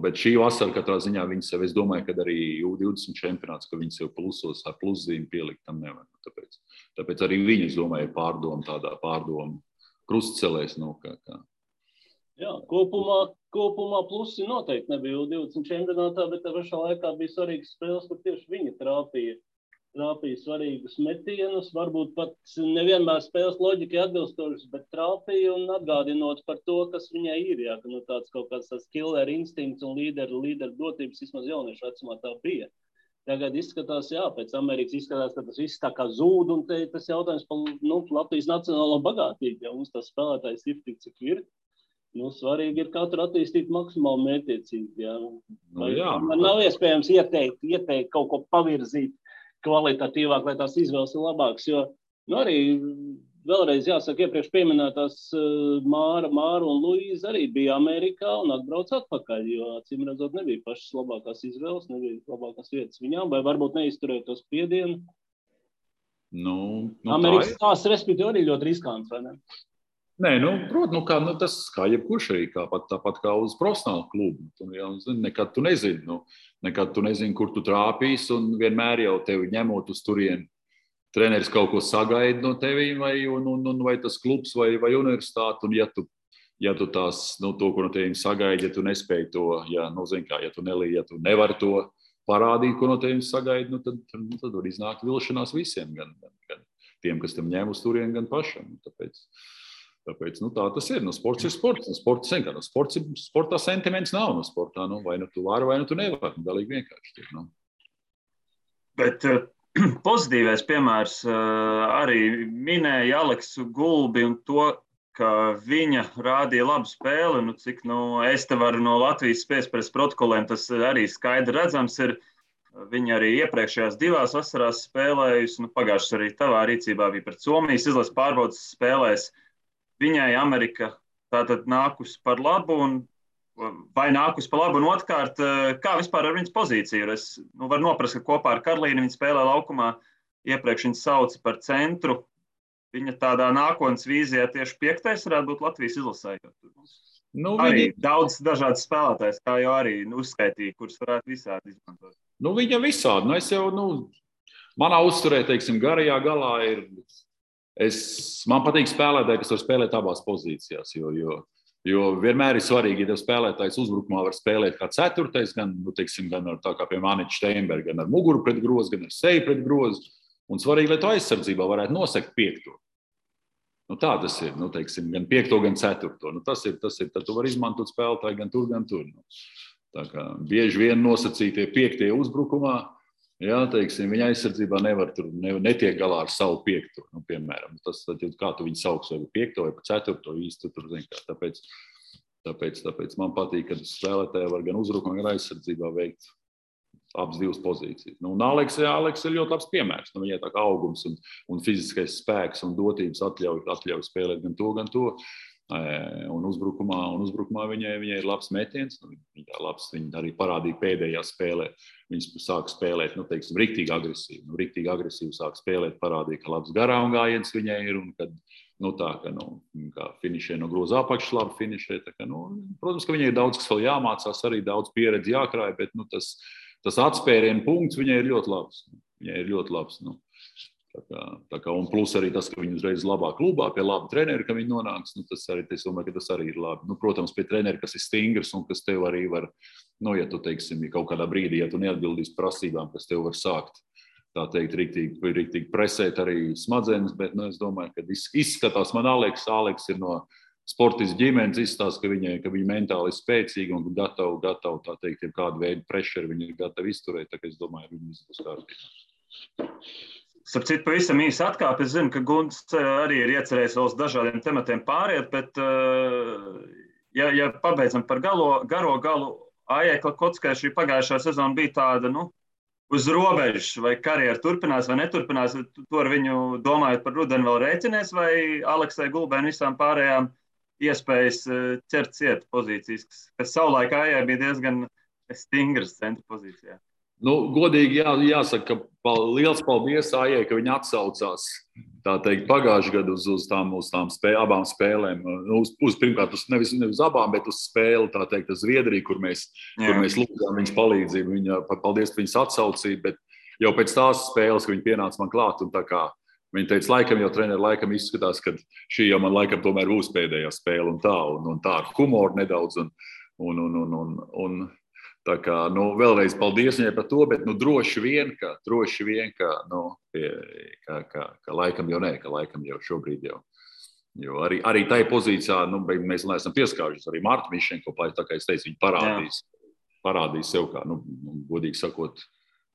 Bet šī vasara katrā ziņā viņas sev, es domāju, ka arī U20 čempionāts, ka viņas sev plusos ar pluszīmi pielikt tam nevar. Tāpēc arī viņi, es domāju, pārdomu krustcelēs. Jā, kopumā plusi noteikti nebija U20 čempionātā, bet tā pašā laikā bija svarīgas spēles, kur tieši viņi trāpīja svarīgus metienus, varbūt pat nevienmēr spēles loģikai atbilstošas, bet trāpīja un atgādinot par to, kas viņai ir. Jā, ka tāds kaut kāds killer instinkts un līderu dotības vismaz jauniešu vecumā tā bija. Tagad izskatās, pēc Amerikas izskatās, ka tas viss tā kā zūd, un tas jautājums par Latvijas nacionālo bagātību, ja mums tas spēlētājs ir tik, cik ir. Svarīgi ir katru attīstīt maksimāli mērķiecīgi. Man nav iespējams ieteikt kaut ko pavirzīt kvalitatīvāk, lai tās izvēles ir labākas, jo Nu, arī vēlreiz jāsaka, iepriekš pieminētās Māra un Luīza arī bija Amerikā un atbrauc atpakaļ, jo, acīm redzot, nebija pašas labākās izvēles, nebija labākās vietas viņām, vai varbūt neizturēja to spiedienu. Amerikas tās, respektīvi, arī ļoti riskants, vai ne? Nē, protams, tas kā jebkurš arī, tāpat kā uz profesionālu klubu. Nekad tu nezini, kur tu trāpīsi, un vienmēr jau tevi ņemot uz turieni. Treneris kaut ko sagaida no tevi, vai tas klubs, vai universitāte, un ja tu tās, to, ko no tevim sagaida, ja tu nespēji to, ja tu nevari to parādīt, ko no tevim sagaida, tad var iznākt vilšanās visiem, gan tiem, kas tam ņem uz turieni, gan pašam. Tāpēc tā tas ir. Sports ir sports. Sportā sentiments nav no sportā. Vai tu vari, vai tu nevari. Galīgi vienkārši. Bet pozitīvais piemērs arī minēja Aleksu Gulbi un to, ka viņa rādīja labu spēli. Cik es te varu no Latvijas spēles protokoliem, tas arī skaidri redzams ir. Viņa arī iepriekšējās 2 vasarās spēlējusi. Pagājušas arī tavā rīcībā bija pret Somijas izlases pārbaudas spēlēs. Viņai Amerika tātad nākus par labu, vai nākus par labu, un otrkārt, kā vispār ar viņas pozīciju? Es varu noprast, ka kopā ar Karlīnu viņa spēlē laukumā, iepriekš viņa sauca par centru. Viņa tādā nākotnes vīzijā tieši 5. varētu būt Latvijas izlasē. Arī daudz dažādas spēlētājas, kā jau arī uzskaitīja, kuras varētu visādi izmantot. Viņa visādi. Es jau, manā uzturē, teiksim, garajā galā ir. Man patīk spēlētāji, kas var spēlēt abās pozīcijās, jo vienmēr ir svarīgi, ja tev spēlētājs uzbrukumā var spēlēt kā 4. gan ar tā kā pie Maniča Steinberga, gan ar muguru pret grozu, gan ar seju pret grozu. Un svarīgi, lai tu aizsardzībā varētu nosekt 5. Tā tas ir, teiksim, gan 5, gan 4. Tas ir, tad tu vari izmantot spēlētāju gan tur. Tā kā bieži vien nosacītie 5. uzbrukumā, teiksim, viņa aizsardzībā netiek galā ar savu 5. Piemēram. Tas, kā tu viņu sauks, vai 5. vai 4. īsti tur, tāpēc man patīk, ka spēlētāji var gan uzbrukumā, gan aizsardzībā veikt abas 2 pozīcijas. Un Aleks ir ļoti labs piemērs. Viņai tā kā augums un fiziskais spēks un dotības atļauj spēlēt gan to. Un uzbrukumā viņai ir labs metiens. Viņa arī parādīja pēdējā spēlē. Viņas sāk spēlēt, teiksim, riktīgi agresīvi. Riktīgi agresīvi sāk spēlēt, parādīja, ka labs garām gājiens viņai ir. Un kad, kā finišē no groza apakšas labi finišē. Protams, ka viņai ir daudz, kas vēl jāmācās, arī daudz pieredzi jākrāj, bet tas atspērienu punkts viņai ir ļoti labs. Un plus arī tas, ka viņi uzreiz labā klubā, pie laba trenera, ka viņi nonāks, es domāju, ka tas arī ir labi. Protams, pie trenera, kas ir stingrs un kas tev arī var, ja tu, teiksim, kaut kādā brīdī, ja tu neatbildīsi prasībām, kas tev var sākt, tā teikt, riktīgi presēt arī smadzenes, bet, es domāju, ka izskatās man Aleks ir no sportistu ģimenes, izstāsta, ka viņa mentāli ir spēcīga un gatava, tā teikt, kādu veidu pressure viņa ir gatava izturēt, tā kā es domāju, viņa būs kārtībā. Starp citu, pavisam īsi atkāp. Es zinu, ka Gunts arī ir iecerējis vēl uz dažādiem tematiem pāriet, bet, ja pabeidzam par garo galu, Aijai Klakotskai šī pagājušā sezona bija tāda, uz robežas, vai karjera turpinās vai neturpinās, to ar viņu domājot par rudeni vēl rēķinies, vai Aleksai Gulbei un visām pārējām iespējas ķert ciet pozīcijas, kas savulaik Aijai bija diezgan stingras centra pozīcijā. Godīgi jāsaka, ka liels paldies Aijai, ka viņa atsaucās, tā teikt, pagājušajā gadu uz tām abām spēlēm. Pirmkārt, nevis uz abām, bet uz spēli, tā teikt, uz Zviedriju, kur mēs lūdzām viņas palīdzību. Viņa, paldies par viņas atsaucību, bet jau pēc tās spēles, ka viņa pienāca man klāt, un tā kā viņa teica, laikam jau treneri laikam izskatās, ka šī jau man laikam tomēr būs pēdējā spēle un tā ar humoru nedaudz un tā kā, vēlreiz paldies viņai par to, bet droši vien, ka laikam jau nē, ka laikam jau šobrīd jau. Jo arī tai pozīcijā, mēs neesam pieskārušies, arī Marta Mišenko, tā kā es teicu, viņa parādīs sev kā, godīgi sakot,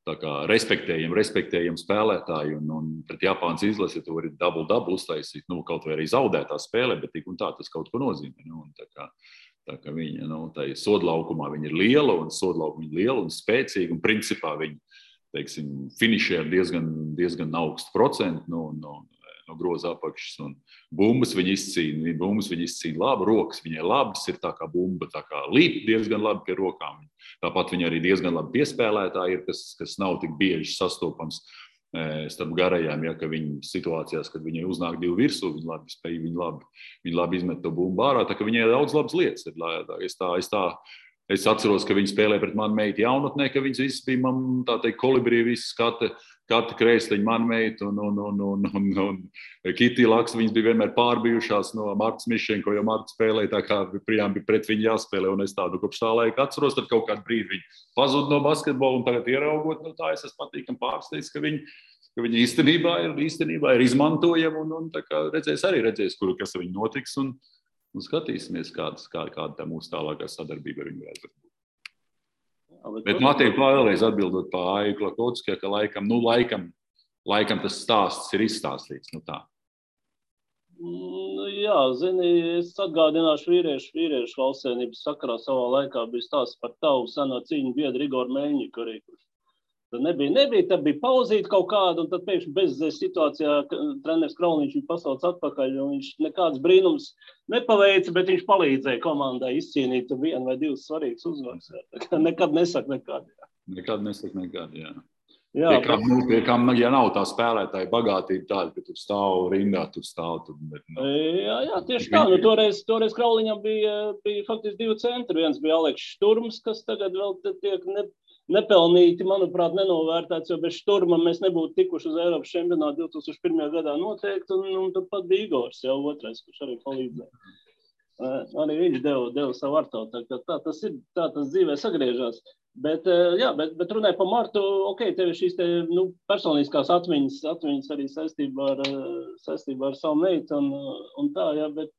tā kā respektējam spēlētāji un pret Japānas izlasi, tu vari double uztaisīt, kaut vai arī zaudētā spēlē, bet tik un tā tas kaut ko nozīmē. Tā kā viņa, tai sodlaukumā viņa ir liela un spēcīga, un principā viņa, teiksim, finišē ar diezgan augstu procentu, no groza apakšas. Un bumbas viņa izcīna labi, rokas viņai labas, ir tā kā bumba, tā kā līp diezgan labi pie rokām. Tāpat viņa arī diezgan labi piespēlētāji ir, kas nav tik bieži sastopams starp garajām, ja, ka viņi situācijās, kad viņai uznāk divi virsū, viņi labi spēj, viņi labi izmet to bumbu ārā, tā ka viņai daudz labas lietas. Es atceros, ka viņi spēlēja pret manu meitu jaunatnē, ka viņas visas bija, man tā teikt, kolibrī, visas kata krēsliņa manu meitu un Kitī Laksa, viņas bija vienmēr pārbijušās no Martas Mišenko, jo Marta spēlēja tā kā prijām bija pret viņu jāspēlē, un es tādu kopš tā laika atceros, tad kaut kādu brīdi viņi pazud no basketbola, un tagad ieraugot, tā es esmu patīkam pārsteigts, ka viņi īstenībā ir izmantojami, un tā kā redzēs, kas viņu notiks, un skatīsimies, kāda tā mūsu tālākā sadarbība ar viņu varētu būt. Bet Matija, vēlreiz atbildot pa Aiju Klakotskijai, ka laikam tas stāsts ir izstāstīts. Tā. Jā, zini, es atgādināšu vīriešu valstsvienības sakarā savā laikā bija stāsts par tavu seno cīņu biedru Igoru Meļņiku arī. Tad nebija, tad bija pauzīta kaut kāda, un tad pēkšņi bezzēs situācijā treneris Krauniņš viņu pasauc atpakaļ, un viņš nekāds brīnums nepaveica, bet viņš palīdzēja komandai izcīnīt vienu vai divas svarīgas uzvaras. Nekad nesaka nekad. Nekad nesaka nekad, jā. Jā, pie kam, ja nav tā spēlētāja bagātība tāda, ka tu stāv rindā, Jā, tieši tā. Toreiz Krauliņam bija faktiski divi centri. Viens bija Aleks Šturms, kas tagad vēl tiek nepelnīti, manuprāt, nenovērtēts, jo bez Šturma mēs nebūtu tikuši uz Eiropas čempionātu 2001. gadā noteikti, un tad pat bija Igors, jau otrais, kurš arī palīdzēja. Arī viņš deva savu artavu, tā tas ir, tā tas dzīvē sagriežās. Bet runāja par Martu, tev ir šīs personiskās atmiņas arī saistībā ar savu meitu un tā, jā, bet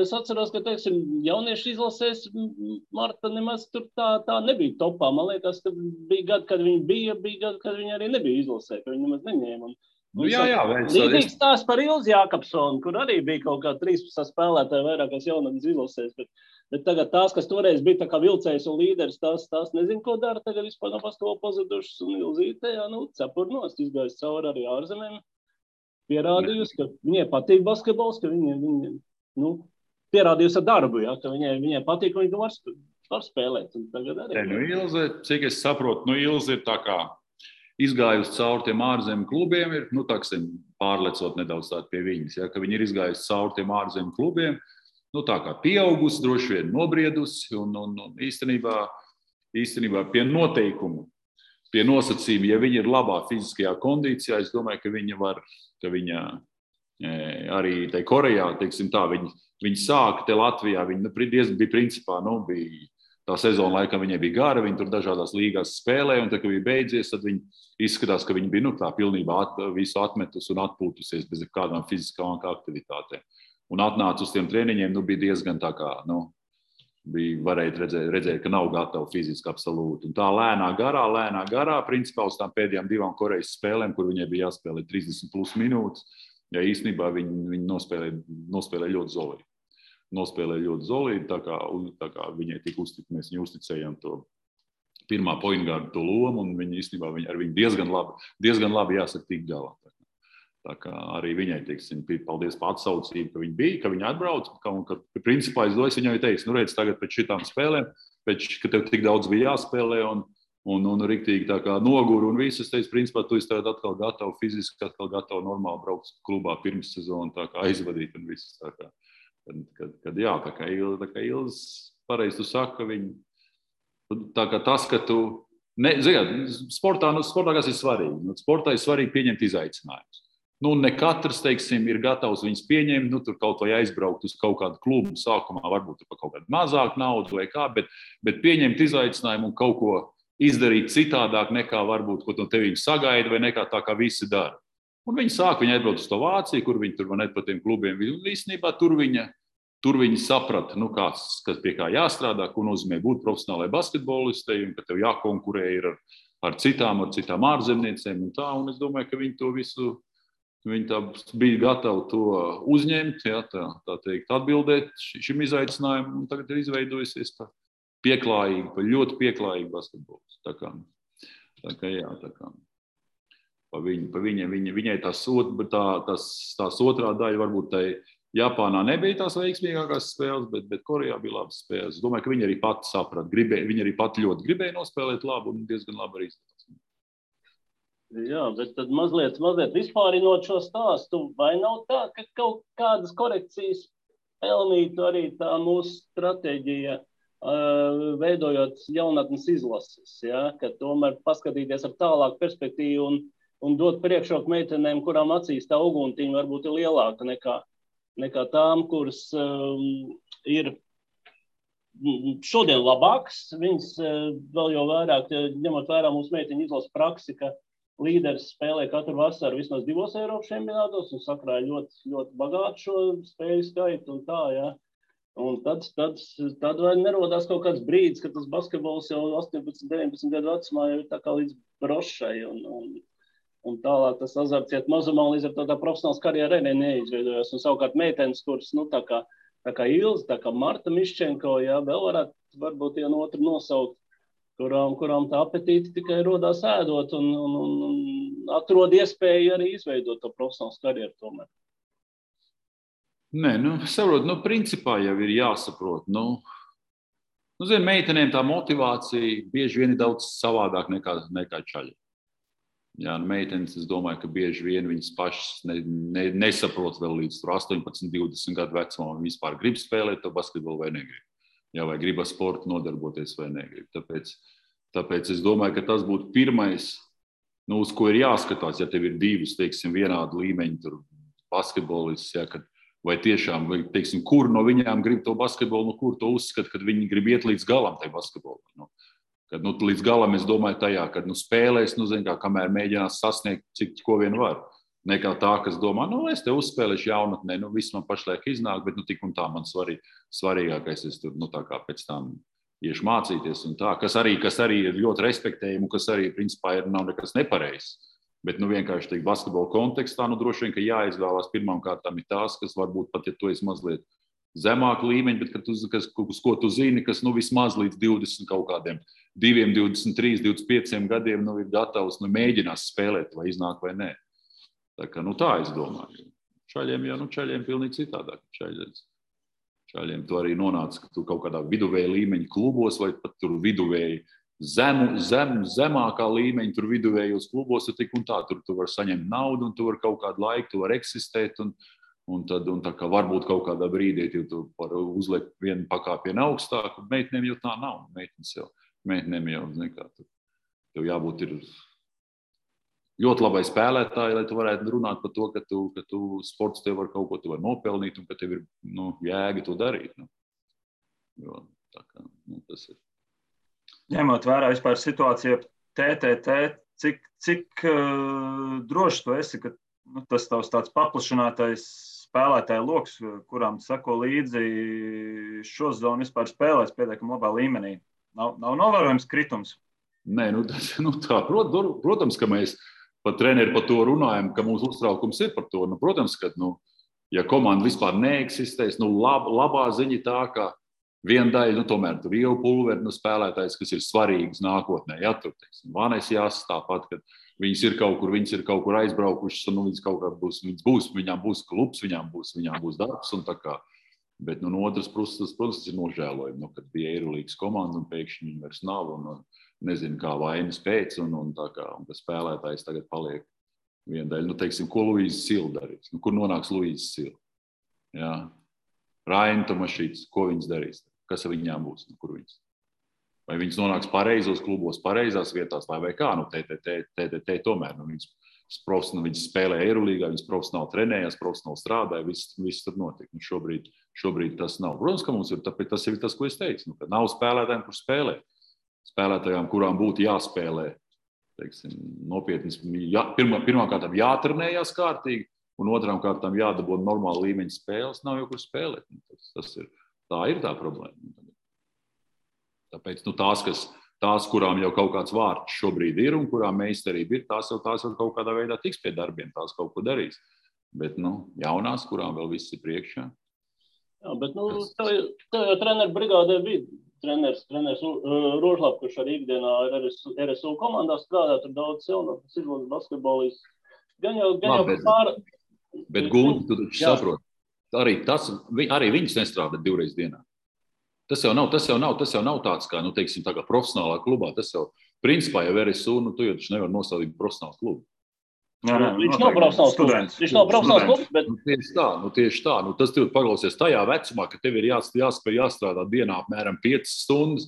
es atceros, ka, teiksim, jauniešu izlasēs Marta nemaz tur tā nebija topā. Man liekas, ka bija gadi, kad viņa bija gadi, kad viņa arī nebija izlasē, ka viņa nemaz neņēma. Līdzīgs stāsts par Ilzi Jākapsonu, kur arī bija kaut kā 13 spēlētāji vairākās jaunatnes izlasēs, bet tagad tās, kas toreiz bija tā kā vilcējs un līderis, tās nezinu, ko dara, tagad vispār nav paskolo pazudušas, un Ilzīte, cepurnost, izgājis cauri arī ārzemēm, pierādījusi, ka viņai patīk basketbols, ka viņa pierādījusi ar darbu, ka viņai patīk, ka viņa var spēlēt. Tagad arī. Ilze, cik es saprotu, Ilze ir tā kā izgājusi cauri tiem ārzemju klubiem, ir, pārlecot nedaudz tādu pie viņas, ka viņi ir izgājusi cauri tiem ārzemju klubiem, tā kā pieaugusi, droši vien nobriedusi, un īstenībā pie noteikumu, pie nosacījuma, ja viņa ir labā fiziskajā kondīcijā, es domāju, ka viņa arī tai Korejā, teiksim tā, viņi sāka te Latvijā, viņi bija principā, bija tā sezona laikam viņai bija gara, viņi tur dažādās līgās spēlēja, un tad, kad bija beidzies, tad viņi izskatās, ka viņi bija tā pilnībā visu atmetus un atpūtusies bez kādām fiziskām aktivitātēm. Un atnāca uz tiem treniņiem, bija diezgan tā kā, varēja redzēt, ka nav gatava fiziski absolūti. Un tā lēnā garā, principā uz tām pēdējām 2 Korejas spēlēm, kur viņai bija jāspēlē 30 plus minūtes, ja īstenībā viņi nospēlēja ļoti zolīgi. Tā kā viņai tika uzticēt, mēs viņai uzticējām to pirmā pointgārdu to lomu, un viņi īstenībā ar viņu diezgan labi jāsaka tik galā. Tā kā arī viņai, teiksim, paldies par atsaucību, ka viņa bija, ka viņa atbrauc, un ka principā es viņai teicu, redz, tagad pēc šitām spēlēm, ka tev tik daudz bija jāspēlē, un riktīgi tā kā noguru, un viss, es teicu, principā, tu esi tagad atkal gatavu fiziski, atkal gatavu normāli braukt klubā pirms sezonu, tā kā aizvadīt un viss, tā kā. Tā kā Ilz, pareizi tu saka, tā kā tas, ka tu, sportā kas ir svarīgi, sportā ir svarīgi pieņemt izaicinājumus. Ne katrs, teiksim, ir gatavs viņus pieņemt, tur kaut vai aizbraukt uz kaut kādu klubu, sākumā varbūt par kaut kādu mazāku naudu vai kā, bet pieņemt izaicinājumu un kaut ko izdarīt citādāk nekā varbūt, ko no tevi sagaida vai nekā tā, kā visi dara. Un viņi atbrauc uz to Vāciju, kur viņi tur net pa tiem klubiem. Īstenībā tur viņi saprata, kas pie kā jāstrādā, ko nozīmē būt profesionālai basketbolistei, un ka tev jākonkurē ir ar citām ārzemniecēm un tā. Un es domāju, ka viņi to visu, viņi tā bija gatavi to uzņemt, tā teikt, atbildēt šim izaicinājumam, un tagad ir izveidojusies tā ļoti pieklājīgi basketbols. Tā kā. Viņai tās otrā daļa varbūt tai Japānā nebija tās veiksmīgākās spēles, bet Korejā bija labas spēles. Es domāju, ka viņi arī pati saprata. Viņi arī pati ļoti gribēja nospēlēt labu un diezgan labi arī izdevās. Jā, bet tad mazliet vispārinot šo stāstu, vai nav tā, ka kaut kādas korekcijas pelnītu arī tā mūsu stratēģija, veidojot jaunatnes izlases, ja? Ka tomēr paskatīties ar tālāku perspektīvu un dot priekšroku meitenēm, kurām acīs tā uguntiņa varbūt ir lielāka nekā tām, kuras ir šodien labākas. Viņas vēl jau vairāk, ņemot vērā mūsu meiteņu izlases praksi, ka līderis spēlē katru vasaru vismaz 2 Eiropas čempionātos un sakrāja ļoti, ļoti bagātu šo spēļu skaitu un tā, ja. Un tad vai nerodās kaut kāds brīdis, ka tas basketbols jau 18, 19 gadu vecumā jau ir tā kā līdz brošai un tālāk tas azarts iet mazumā līdz ar to tā profesionāls karjerai neizveidojās. Un savukārt meitenes, kuras, tā kā Ilze, tā kā Marta Miščenko, ja, vēl varētu varbūt vienu otru nosaukt, kurām tā apetīti tikai rodās ēdot un atrod iespēju arī izveidot to profesionālu karjeru tomēr. Nē, saprot, principā jau ir jāsaprot. Zin, meitenēm tā motivācija bieži vien ir daudz savādāk nekā čaļi. Jā, meitenes, es domāju, ka bieži vien viņas pašas nesaprot vēl līdz 18, 20 gadu vecumā, un vispār grib spēlēt to basketbolu vai negrib. Jā, vai grib ar sportu nodarboties vai negrib. Tāpēc es domāju, ka tas būtu pirmais, uz ko ir jāskatās, ja tev ir divas, teiksim, vienādu līmeņu tur basketbolists, ja, vai tiešām, teiksim, kur no viņām grib to basketbolu, kur to uzskata, kad viņi grib iet līdz galam tai basketbolu. Kad līdz galam es domāju tajā, kad spēlēs, kamēr mēģinās sasniegt, ko vien var. Nekā tā, kas domā, es te uzspēlēšu jaunatnē, viss man pašlaik iznāk, bet tik un tā man svarīgākais, es tur, tā kā pēc tam iešu mācīties un tā, kas arī ir ļoti respektējami, kas arī, principā, nav nekas nepareizs. Bet, vienkārši teikt, basketbola kontekstā, droši vien, ka jāizvēlās pirmām kārtām ir tās, kas varbūt pat, ja tu esi mazliet zemāku līmeņu, bet uz ko tu zini, kas, vismaz līdz 20 kaut kādiem 2, 23, 25 gadiem, ir gatavs, mēģinās spēlēt, vai iznāk vai nē. Tā es domāju. Čaļiem pilnīgi citādāk. Čaļiem tu arī nonāc, ka tu kaut kādā viduvēja līmeņa klubos vai pat tur viduvēji zemākā līmeņa tur viduvējos klubos, tik un tā, tur tu vari saņemt naudu un tu vari kaut kādu laiku, tu vari eksistēt un tā kā varbūt kaut kādā brīdī tu vari uzliekt vienu pakāpienu augstāk, meitenēm jau tā nav. Meitenēm jau, tev jābūt ir ļoti labai spēlētāji, lai tu varētu runāt par to, ka tu sports tev var kaut ko tu var nopelnīt un ka tev ir jēga to darīt. Jo, tā kā, tas ir. Ņemot vērā vispār situāciju TTT, cik droši tu esi, ka tas tavs tāds paplašinātais spēlētāju loks, kurām sako līdzi šo zonu vispār spēlēs pietiekami labā līmenī? Nav novērojams kritums? Nē, tā, protams, ka mēs pat treneri par to runājam, ka mūsu uztraukums ir par to. Protams, ka, ja komanda vispār neeksistēs, labā ziņa tā, ka viena daļa, tomēr tur jau pulveri spēlētājs, kas ir svarīgs nākotnē. Ja, tur, teiksim, Vanes jāsas tāpat, ka viņas ir kaut kur aizbraukušas, un viņas kaut kā būs, viņām būs klubs, viņām būs darbs, un tā kā. Bet no otras puses, protams, ir nožēlojumi, kad bija Eirolīgas komanda, un pēkšņi viņi vairs nav, un nezinu, kā vainas pēc, un tā kā, un ka spēlētājs tagad paliek viena daļa. Teiksim, ko Luīza Sila darīs? Kur nonāks Luīza Sila? Jā. Raina Tomašīts, ko viņas darīs? Kas ar viņām būs? Kur viņas? Vai viņas nonāks pareizos klubos, pareizās vietās, vai kā? TTT tomēr. Viņas spēlē Eirolīgā, viņas profesionāli trenējās, profesionāli strādāja, viss tur notika. Šobrīd tas nav. Protams, ka mums ir, tāpēc tas ir tas, ko es teicu. Ka nav spēlētājiem, kur spēlēt. Spēlētājām, kurām būtu jāspēlē, teiksim, nopietni, pirmām kārtām jātrenējās kārtīgi, un otrām kārtām jādabūna normāla līmeņa spēles, nav jau kur spēlēt. Tā ir tā problēma. Tāpēc tās, kurām jau kaut kāds vārds šobrīd ir un kurām meistarība ir, tās jau kaut kādā veidā tiks pie darbiem, tās kaut ko darīs. Bet jaunās, kurām vēl viss ir priekšā. Jā, bet tev jau treneru brigādē bija treneris Rožlap, kurš arī ikdienā ir RSU komandā strādā, tur daudz jaunatnes izlases basketbolists. Gan jau Bet Gunti, tu taču saproti, arī viņus nestrādā 2 reizes dienā. Tas jau nav tāds kā, teiksim, tā kā profesionālā klubā. Tas jau, principā, jau RSU, tu jau taču nevar nosaukt profesionāls klubs. Viņš nav profesionāls klubs. Viņš nav profesionāls klubs, bet... Tieši tā. Tas tev paklausies tajā vecumā, ka tev ir jāspēj jāstrādā dienā apmēram 5 stundas.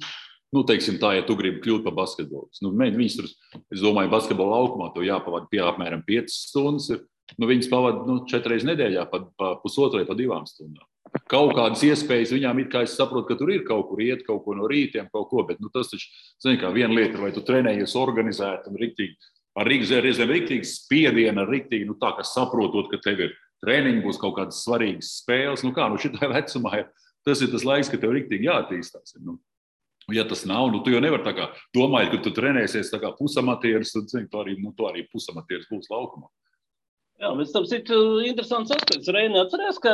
Teiksim tā, ja tu gribi kļūt par basketbolistu. Viņas tur, es domāju, basketbola laukumā to jāpavada pie apmēram 5 stundas. Viņas pavada 4 reizes nedēļā, pa pusotrai, pa 2 stundām. Kaut kādas iespējas viņām ir, kā es saprotu, ka tur ir kaut kur iet, kaut ko no rītiem, kaut ko, bet tas taču, zini, kā viena lieta, vai tu trenējies organizēt un riktīgi, ar riktīgi spiedienu, ar riktīgi, tā kā saprotot, ka tev ir treniņi, būs kaut kādas svarīgas spēles, šitā vecumā, tas ir tas laiks, ka tev riktīgi jātīstās. Ja tas nav, tu jau nevar tā kā domājot, ka tu trenēsies tā kā pusamatieris, tad tu arī pusamatieris būs laukumā. Jā, bet tam ir interesants aspekts. Reini, atceries, ka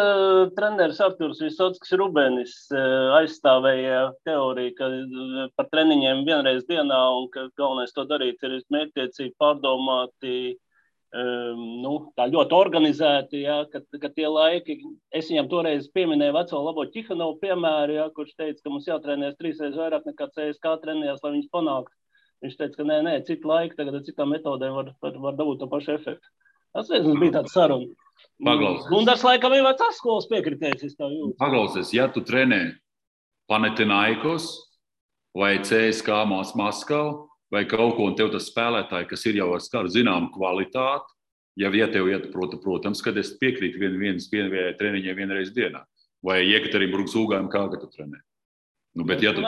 treneris Arturs Visockis Rubenis aizstāvēja teoriju, ka par treniņiem 1 reizi dienā un ka galvenais to darīt ir mērķtiecīgi pārdomāti, tā ļoti organizēti, ka tie laiki, es viņam toreiz pieminēju veco labo Ķihanovu piemēru, kurš teica, ka mums jātrenēs 3 reizes vairāk nekā CSK trenējās, lai viņus panāktu. Viņš teica, ka nē, citu laiku tagad ar citām metodēm var dabūt to pašu efektu. Tas bija tāds saruna. Paklausies. Gundars laikam ir vecās skolas piekritējis, es tā jūtu. Paklausies, ja tu trenē Panathinaikos vai CSK Maskavu vai kaut ko, un tev tas spēlētāji, kas ir jau ar skaru zināmu kvalitāti, ja tev iet, protams, kad es piekrītu vienas treniņai 1 reizi dienā. Vai Jekaterinburgas Ūgājam, kā tu trenē. Bet ja tu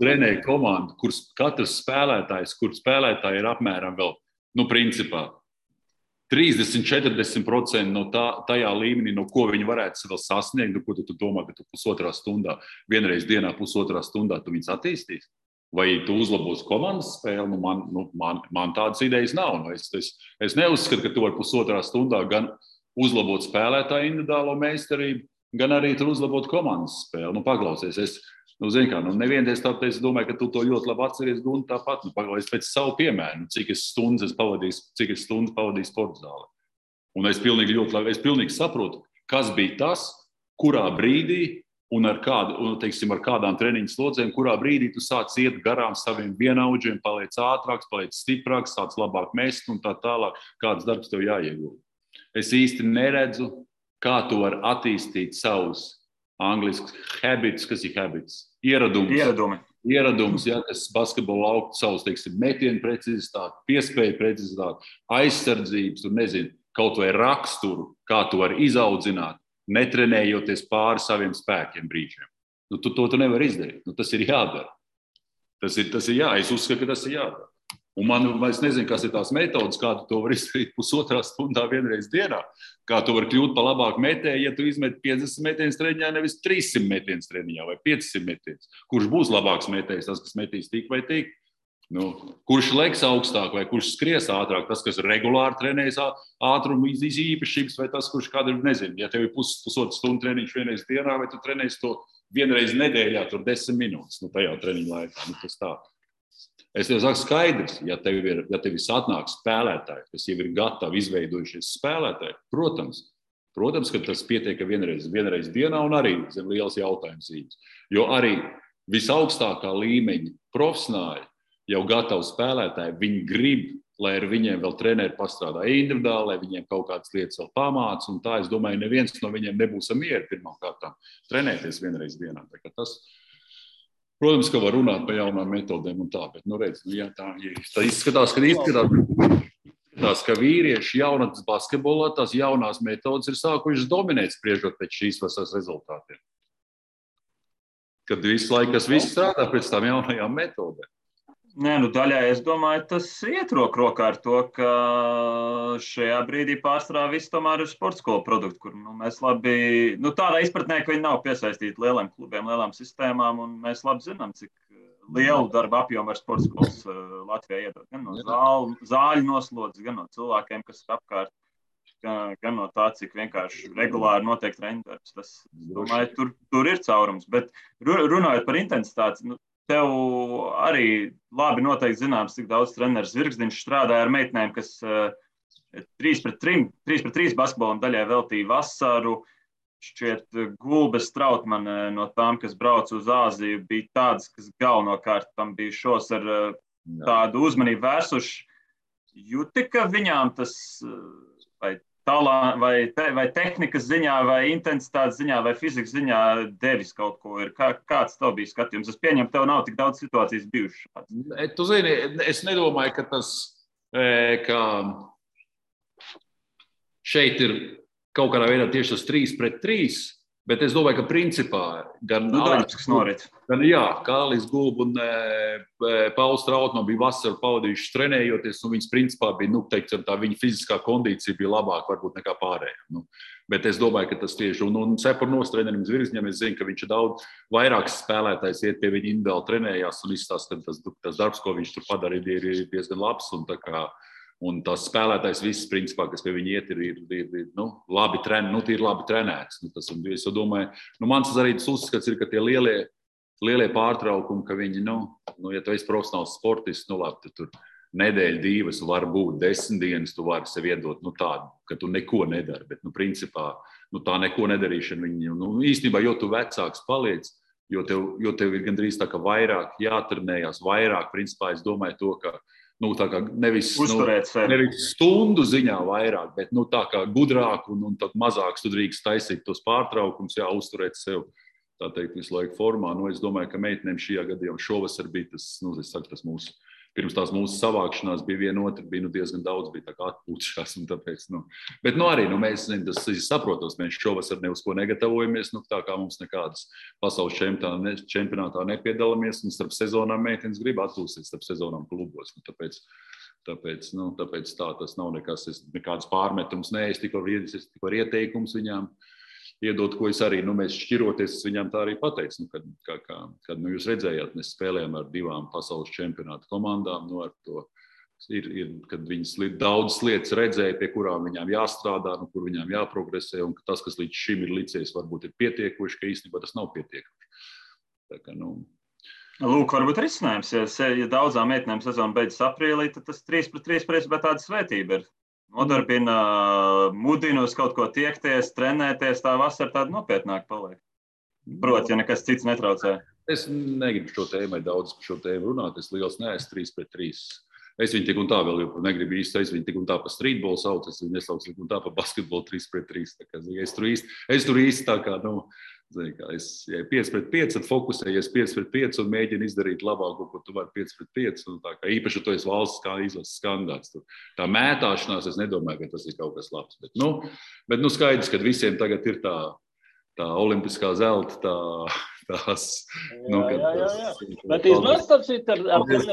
trenē komandu, kur katrs spēlētājs, kur spēlētāji ir apmēram vēl, principā 30-40% no tajā līmenī, no ko viņi varētu vēl sasniegt, ko tu domā, ka tu pusotras stundā, 1 reizi dienā, pusotras stundā tu viņus attīstīs? Vai tu uzlabos komandas spēli? Man tādas idejas nav. Es neuzskatu, ka tu vari pusotras stundā gan uzlabot spēlētāju individuālo meistarību, gan arī tur uzlabot komandas spēli. Paklausies, nevienties tāpēc, es domāju, ka tu to ļoti labi atceries, un tāpat, paklausies pēc savu piemēru, cik es stundas pavadīju sporta zālē. Un es pilnīgi saprotu, kas bija tas, kurā brīdī un ar kādām treniņu slodzēm, kurā brīdī tu sāc iet garām saviem vienaudžiem, paliec ātrāks, paliec stiprāks, sāc labāk mest un tā tālāk, kāds darbs tev jāiegulda. Es īsti neredzu, kā tu vari attīstīt savus angliski habits, kas ir habits? Ieradums, kas basketbola lauku savus, metienu precizitāti, piespēju precizitāti, aizsardzības, kaut vai raksturu, kā tu vari izaudzināt, netrenējoties pāri saviem spēkiem brīžiem. To nevar izdarīt. Tas ir jādara. Tas ir es uzskatu, ka tas ir jādara. Un es nezinu, kas ir tās metodas, kā tu to var izdarīt pusotrā stundā 1 reizi dienā, kā tu vari kļūt par labāku metēju, ja tu izmet 50 metienas treniņā, nevis 300 metienas treniņā vai 500 metienas. Kurš būs labāks metējs, tas, kas metīs tik vai tik? Kurš leks augstāk vai kurš skries ātrāk, tas, kas regulāri trenējas ātrumu īpašības, vai tas, kurš kādu nezinu, ja tev ir pusotru stundu treniņš 1 reizi dienā, vai tu trenēsi to 1 reizi nedēļā, tur 10 minūtes, tajā treniņu laikā. Tas tā. Es tev saku skaidrs, ja tev ir atnāk spēlētāji, kas jau ir gatavi izveidojušies spēlētāji, protams, ka tas pietiek 1 reizi dienā un arī zem liels jautājums zīmes. Jo arī visaugstākā līmeņa profesionāļi, jau gatavi spēlētāji, viņi grib, lai ar viņiem vēl treneri pastrādā individuāli, lai viņiem kaut kādas lietas vēl pamāca, un tā, es domāju, neviens no viņiem nebūs mieri pirmām kārtām trenēties 1 reizi dienā. Protams, ka var runāt par jaunām metodēm un tā, bet, tā izskatās, ka vīrieši jaunatnes basketbolā tās jaunās metodas ir sākušas dominēt spriežot pēc šīs vasaras rezultātiem. Kad visu laiku viss strādā pēc tām jaunajām metodēm. Daļai, es domāju, tas iet roku rokā ar to, ka šajā brīdī pārstrādā viss tomēr ir sporta skolu produkti, kur mēs labi, tādā izpratnē, ka viņi nav piesaistīti lieliem klubiem, lielām sistēmām, un mēs labi zinām, cik lielu darba apjomu ar sporta skolas Latvijā iedod. Gan no zāļu noslodzes, gan no cilvēkiem, kas ir apkārt. gan no tā, cik vienkārši regulāri notiek treniņdarbs. Tas, domāju, tur ir caurums. Bet runājot par intensitāti, tev arī labi noteikti zināms, cik daudz treneris Zvirgzdiņš strādāja ar meitenēm, kas 3-3 basketbolam daļai veltīja vasaru. Šķiet, Gulbes Trautmane no tām, kas brauca uz Āziju, bija tādas, kas galvenokārt tam bija šos ar tādu uzmanību vērsuši. Jūti, ka viņām tas vai tehnikas ziņā, vai intensitātes ziņā, vai fizikas ziņā devis kaut ko ir? Kāds tev bija skatījums? Es pieņemu, tev nav tik daudz situācijas bijušas. Tu zini, es nedomāju, ka tas, ka šeit ir kaut kādā veidā tieši tas 3-3, bet es domāju, ka principā gan Alis Gulba un Pauls Trautmane bija vasaru pavadījuši trenējoties, un viņas principā bija, teiksim, tā viņa fiziskā kondīcija bija labāka varbūt nekā pārējā. Bet es domāju, ka tas tieši, un Cepurnos trenerim Zvirgzdiņam, es zinu, ka viņš ir daudz vairāks spēlētājs, iet pie viņa individuāli trenējās un izstāsta, ka tas darbs, ko viņš tur padarīja, ir diezgan labs, un tas spēlētājs viss, principā, kas pie viņa iet, ir labi trenēts. Es domāju, mans arī tas uzskats ir, ka tie lielie pārtraukumi, ka viņi, ja tu esi profesionāls sportists, labi, tur nedēļa, 2, var būt 10 dienas, tu vari sev iedot tādu, ka tu neko nedari, bet, principā, tā neko nedarīšana viņa, īstenībā, jo tu vecāks paliec, jo tev ir gandrīz tā, ka vairāk jātrenējās, vairāk, principā, es domāju to, ka tā kā nevis stundu ziņā vairāk, bet tā kā gudrāk un tad mazāks tu drīkst taisīt tos pārtraukums, uzturēt sev, tā teikt, visu laiku formā. Es domāju, ka meitenēm šajā gadījumā šovasar bija tas, tas mūsu, pirms tās mūsu savākšanās bija viena otra, bija diezgan daudz, bija tā kā atpūtušās un tāpēc, bet arī, mēs, tas saprotos, mēs šovasar ne uz ko negatavojamies, tā kā mums nekādas pasaules čempionātā nepiedalāmies, un starp sezonām meitenes grib atpūsties starp sezonām klubos, tāpēc tā tas nav nekāds pārmetums, es tikai var ieteikums viņām iedot, ko es arī, mēs šķiroties, es viņām tā arī pateicu, kad jūs redzējāt, mēs spēlējām ar 2 pasaules čempionāta komandām, ar to kad viņas daudzas lietas redzēja, pie kurām viņām jāstrādā, kur viņām jāprogresē, un tas, kas līdz šim ir licies, varbūt ir pietiekoši, ka īstenībā tas nav pietiekoši. Tā kā, Lūk, varbūt risinājums, ja daudzām meitenēm sezona beidzas aprīlī, tad tas 3-3 principā tāda svētība ir. Nodarbina, mudina uz kaut ko tiekties, trenēties, tā vasara tāda nopietnāk paliek. Proti, ja nekas cits netraucē. Es negribu daudz par šo tēmu runāt, es liels neesmu 3-3. Es viņu tik un tā vēl negribu īsti, es viņu tik un tā pa streetbolu sauc, es viņu nesaucu tik un tā pa basketbolu 3-3. Es tur īsti tā kā, es 5-5, tad fokusējies 5-5 un mēģinu izdarīt labāko, ko tu vari 5-5. Īpaši, tu esi valsts izlases kandidāts. Tā mētāšanās, es nedomāju, ka tas ir kaut kas labs. Bet skaidrs, ka visiem tagad ir tā olimpiskā zelta, tās... Bet iznāca ar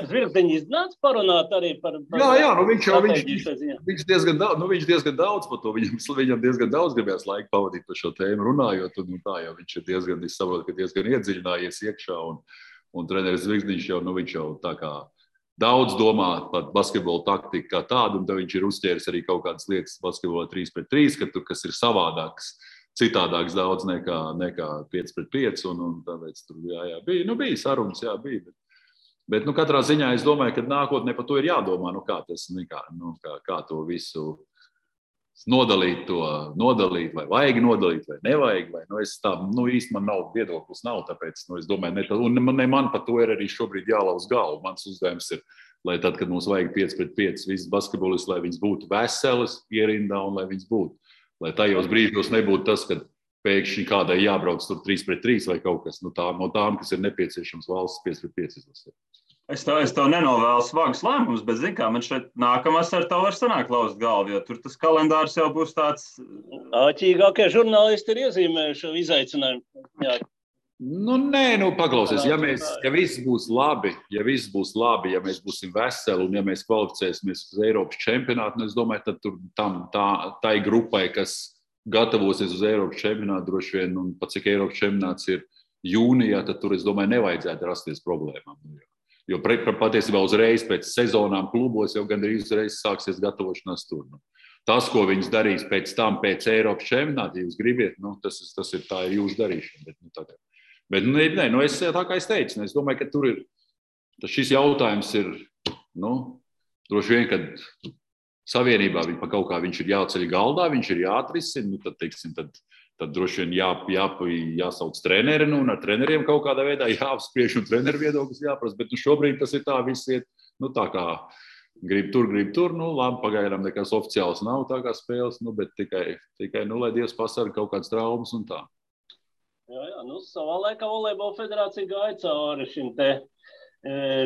Zvirgzdiņu iznāca parunāt arī par... Jā, viņš diezgan daudz par to, viņam diezgan daudz gribējās laika pavadīt par šo tēmu runājot, un tā jau viņš ir diezgan iedziļinājies iekšā, un treneris Zvirgzdiņš jau, viņš jau tā kā daudz domā par basketbolu taktiku kā tādu, un tad viņš ir uzķēris arī kaut kādas lietas basketbolā 3-3, kas ir savādāks, citādāks daudz nekā 5-5, un tāpēc tur bija sarunas, bija. Bet katrā ziņā es domāju, ka nākotnē par to ir jādomā, kā to visu nodalīt, vai vajag nodalīt, vai nevajag, īsti man nav viedoklis, tāpēc, es domāju, un man par to ir arī šobrīd jālauz galvu. Mans uzdevums ir, lai tad, kad mums vajag 5-5 visas basketbolists, lai viņas būtu veselas ierindā un lai viņas būtu. Lai tajos brīžos nebūtu tas, ka pēkšņi kādai jābrauc tur 3-3 vai kaut kas no tām, kas ir nepieciešams valsts 5-5 izlasē. Es tev nenovēlu smagus lēmumus, bet, zini kā, man šeit nākamās ar tev var sanākt lauzt galvu, jo tur tas kalendārs jau būs tāds... Āķīgākie žurnālisti ir iezīmējuši izaicinājumu. Paklausies, ja viss būs labi, ja mēs būsim veseli un ja mēs kvalificēsimies uz Eiropas čempionātu, es domāju, tad tur tai grupai, kas gatavosies uz Eiropas čempionātu droši vien, un pat cik Eiropas čempionāts ir jūnijā, tad tur, es domāju, nevajadzētu rasties problēmām. Jo patiesībā uzreiz pēc sezonām klubos jau gandrīz uzreiz sāksies gatavošanās tur. Tas, ko viņas darīs pēc tam, pēc Eiropas čempionāta, ja jūs gribiet, tas ir tā jūsu darīšana. Bet es tā kā es teicu, es domāju, ka tur ir, šis jautājums ir, droši vien, kad savienībā pa kaut kā viņš ir jāceļ galdā, viņš ir jāatrisina, tad droši vien jāsauc treneri, un ar treneriem kaut kādā veidā jāapspriež un treneru viedoklis jāprasa, bet šobrīd tas ir tā, viss iet, tā kā grib tur, labi, pagaidām nekas oficiāls nav tā kā spēles, bet tikai lai Dievs pasarga kaut kādas traumas un tā. Jā, savā laikā Volejbola federācija gāja cauri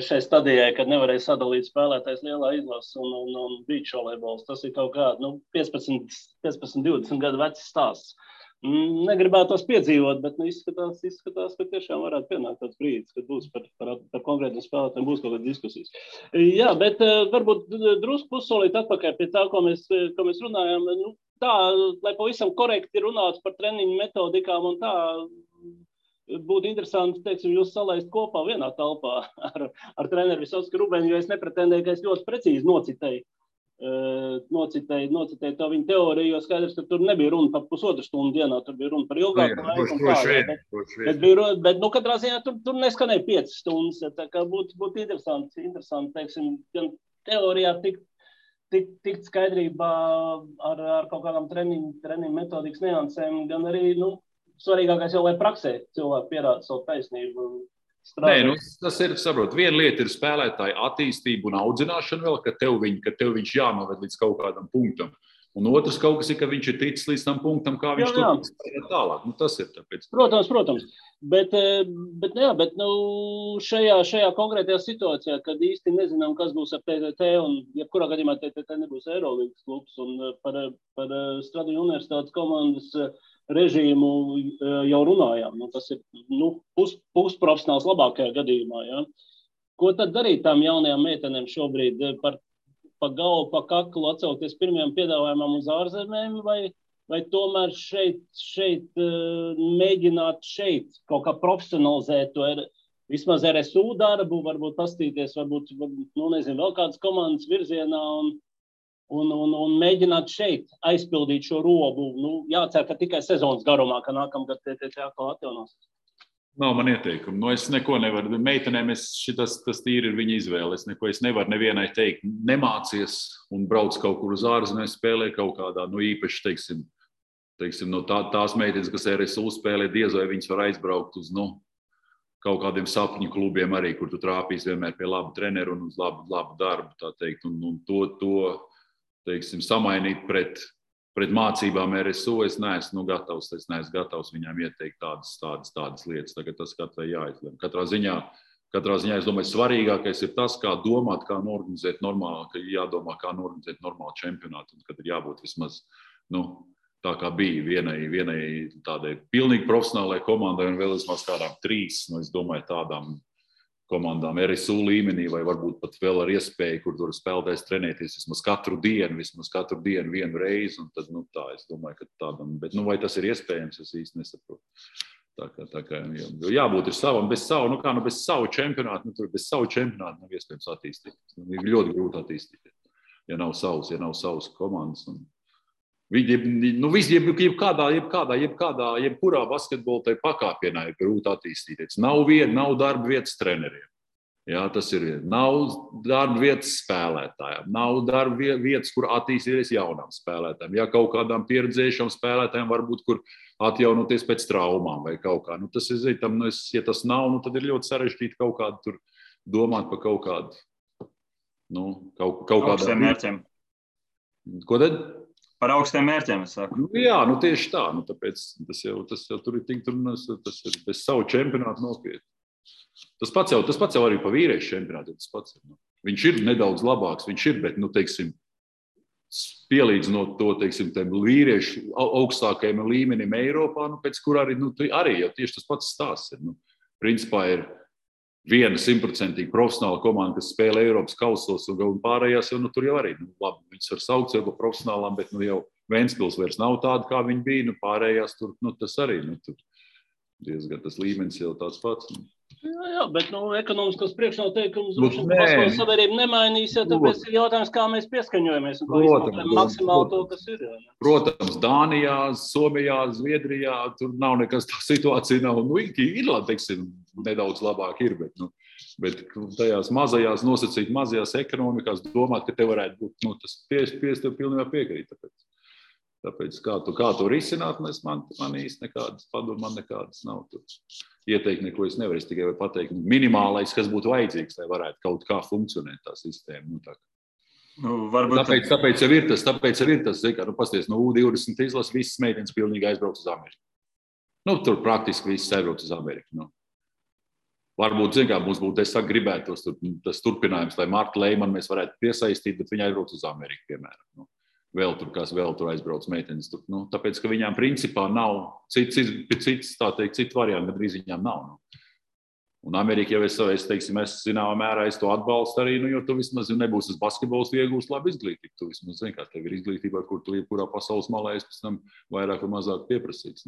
šai stadijai, kad nevarēja sadalīt spēlētājs lielā izlases un beach volejbols. Tas ir kaut kā 15-20 gadu vecs stāsts. Negribētos piedzīvot, bet izskatās, ka tiešām varētu pienākt tāds brīdis, kad būs par konkrētiem spēlētājiem būs kaut kādas diskusijas. Jā, bet varbūt drusku pussolīt atpakaļ pie tā, ko mēs runājām. Tā, lai pavisam korekti runātu par treniņu metodikām un tā, būtu interesanti, teiksim, jūs salaist kopā vienā telpā ar treneru Visocku Rubeni, jo es nepretendēju, ka es ļoti precīzi nocitēju to viņa teoriju, jo skaidrs, ka tur nebija runa par pusotru stundu dienā, tur bija runa par ilgāku laiku. Bet katrā ziņā tur neskanēja 5 stundas. Tā kā būtu interesanti, teiksim, gan teorijā tikt skaidrībā ar kaut kādām treniņu metodikas niansēm, gan arī, svarīgākais jau, lai praksē cilvēki pierāda savu taisnību. Nē, tas ir, saprot, viena lieta ir spēlētāja attīstība un audzināšana vēl, ka tev viņš jānoved līdz kaut kādam punktam. Un otrs kaut kas ir, ka viņš ir ticis līdz tam punktam, kā viņš tur tālāk. Tas ir tāpēc. Protams. Bet šajā konkrētajā situācijā, kad īsti nezinām, kas būs ar TTT, un jebkurā gadījumā TTT nebūs Eirolīgas klubs, un par Stradiņu universitātes komandas režīmu jau runājām. Tas ir pusprofesionāls labākajā gadījumā. Ja? Ko tad darīt tām jaunajām meitenēm šobrīd? Pa galvu, pa kaklu atsaukties pirmajām piedāvājumam uz ārzemēm, vai tomēr šeit mēģināt kaut kā profesionalizēt to vismaz RSU darbu, varbūt pastīties, varbūt vēl kādas komandas virzienā un mēģināt šeit aizpildīt šo robu. Jācer, ka tikai sezonas garumā, ka nākamgad TTT atkal atjaunosies. Nav man ieteikumu. Es neko nevaru. Meitenēm tas tīri ir viņa izvēle. Es nevaru nevienai teikt, nemācies un brauc kaut kur uz ārzemēm, spēlē kaut kādā, īpaši, teiksim, tās meitenes, kas RSU spēlē, diez vai viņas var aizbraukt uz, kaut kādiem sapņu klubiem arī, kur tu trāpīs vienmēr pie laba treneru un uz labu darbu, tā teikt, un to teiksim, samainīt pret mācībām RSU, es neesmu gatavs viņām ieteikt tādas lietas. Tagad tas katrai jāizlem. Katrā ziņā, es domāju, svarīgākais ir tas, kā domāt, kā norganizēt normālu čempionātu, un kad ir jābūt vismaz, tā kā bija vienai tādai pilnīgi profesionālai komandai un vēl vismaz kādām 3, es domāju, tādām komandām RSU līmenī, vai varbūt pat vēl ar iespēju, kur tur spēlētājs trenēties vismaz katru dienu vienu reizi, un tad, tā, es domāju, ka tādam, bet, vai tas ir iespējams, es īsti nesaprotu. Tā kā jābūt ir savam, bez savu čempionātu, bez savu čempionātu nav iespējams attīstīt. Ir ļoti grūti attīstīt, ja nav savas komandas. Jebkurā basketbola tai pakāpienā ir grūti attīstīties. Nav darba vietas treneriem. Jā, tas ir viena. Nav darba vietas spēlētājiem. Nav darba vietas, kur attīstīties jaunām spēlētājiem. Ja kaut kādām pieredzējušām spēlētājiem varbūt, kur atjaunoties pēc traumām vai kaut kā. Tas ir, ja tas nav, tad ir ļoti sarežģīti kaut kādu tur domāt par kaut kādu, kaut kādām mērķiem. Ko tad? Par augstiem mērķiem, es saku. Jā, tieši tā. Tāpēc tas jau tur ir tik, tas ir bez savu čempionātu nopietni. Tas pats jau arī pa vīriešu čempionātu. Viņš ir nedaudz labāks, bet, teiksim, pielīdzinot to, teiksim, tiem vīriešu augstākajiem līmenim Eiropā, pēc kur arī jau tieši tas pats stāsts ir. Principā ir viena 100% profesionāla komanda, kas spēlē Eiropas kausos, un pārējās jau tur jau arī. Labi, viņas var saukt jau par profesionālām, bet jau Ventspils vairs nav tāda, kā viņi bija. Pārējās tur, tas arī tur diezgan tas līmenis jau tāds pats. Jā, bet ekonomiskos priekšnoteikumus Nē. pasaules sabiedrība nemainīs, ja tāpēc ir jautājums, kā mēs pieskaņojamies un kā izmantojam maksimāli to, kas ir. Jā. Protams, Dānijā, Somijā, Zviedrijā, tur nav nekas tā situācija nav. Irlanda, teiksim, nedaudz labāk ir, bet tajās mazajās ekonomikās domāt, ka te varētu būt, tas tev pilnībā piekrīt. Tāpēc kā to risināt, man īsti nekādas padomu, man nekādas nav. Ieteikt neko es nevaru, es tikai varu pateikt minimālais, kas būtu vajadzīgs, lai varētu kaut kā funkcionēt tā sistēma. Tāpēc jau ir tas, pasties, U20 izlas, visas meitenes pilnīgi aizbrauc uz Ameriku. Tur praktiski visas aizbrauc uz Ameriku. Varbūt, mums būtu, es gribētos tas turpinājums, lai Marta Leimanu mēs varētu piesaistīt, bet viņa aizbrauc uz Ameriku, piemēram. Vēl tur aizbrauc meitenes. Tāpēc, ka viņām principā nav cits variants, gandrīz viņām nav. Un Amerika jau es zināmā mērā to atbalstu arī, jo tu vismaz nebūsi uz basketbols iegūst labu izglītību. Tu vismaz zini, kā tev ir izglītība, kur tu jebkurā pasaules malā esi pēc tam vairāk vai mazāk pieprasīts.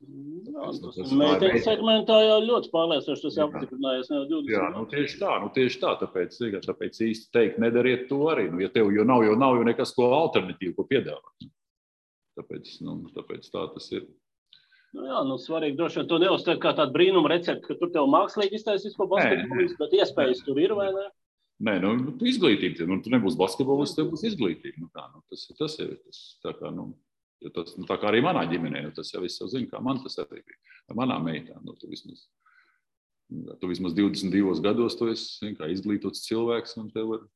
Meiteņu segmentā jau ļoti pārliecinoši tas apstiprinājies jau 20. Jā, tieši tā. Tāpēc īsti teikt, nedariet to arī. Ja tev jau nav nekas ko alternatīvu, ko piedāvāt. Tāpēc tā tas ir. Svarīgi droši vien to neuztver kā tādu brīnumu recepti, ka tur tev mākslīgi iztaisīs ko basketbolistu, bet iespējas tur ir, vai ne? Nē, izglītība. Tu nebūs basketbolists, tev būs izglītība. Tas ir tā kā, tā kā arī manā ģimenē, tas jau viss jau zina, kā man tas arī bija. Ar manām meitām, tu vismaz 22 gados tu esi kā izglītots cilvēks un tev ir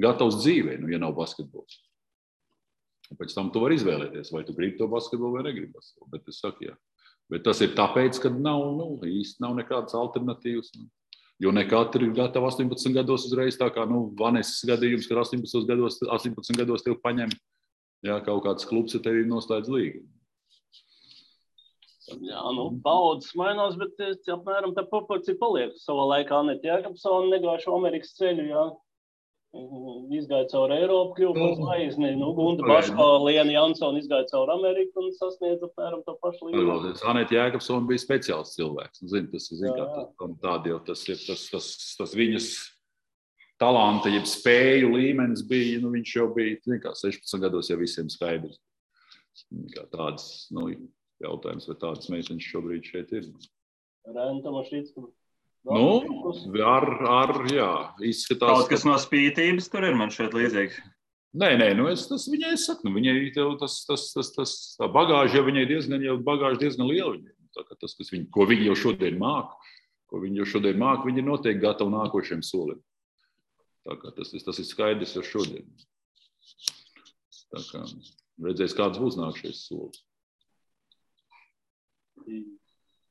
gatavs dzīvē, ja nav basketbols. Un pēc tam tu vari izvēlēties, vai tu gribi to basketbolu vai negribi basketbolu. Bet es saku, jā. Bet tas ir tāpēc, ka īsti nav nekādas alternatīvas. Jo ne katri ir gatavi 18 gados uzreiz, tā kā Vanesas gadījums, kad 18 gados tev paņem. Jā, kaut kāds klubs ar tevi noslēdz līgumu. Jā, paudzes mainās, bet apmēram tā proporcija paliek. Savā laikā Aneta Jēkabsone negāja šo Amerikas ceļu, jā. Izgāja caur Eiropu, kļuva par zvaigzni. Gunda Baško, Liena Jansona izgāja caur Ameriku un sasniedza apmēram to pašu līgumu. Aneta Jēkabsone bija speciāls cilvēks. Tas ir tas viņas talanta, jeb spēju līmenis bija, viņš jau bija, 16 gados jau visiem skaidrs. Tāds, jautājums, vai tādas meitenes šobrīd šeit ir. Rēna Tomašīcka. Jā, izskatās. Kaut kas no spītības tur ir man šeit līdzīgs. Nē, tas viņai saku, viņai tā bagāža jau viņai diezgan liela. Tas, ko viņi jau šodien māk, viņi ir noteikti gatavi nākošiem solim. Tas ir skaidrs jau šodien. Redzēs, kāds būs nākšais solis.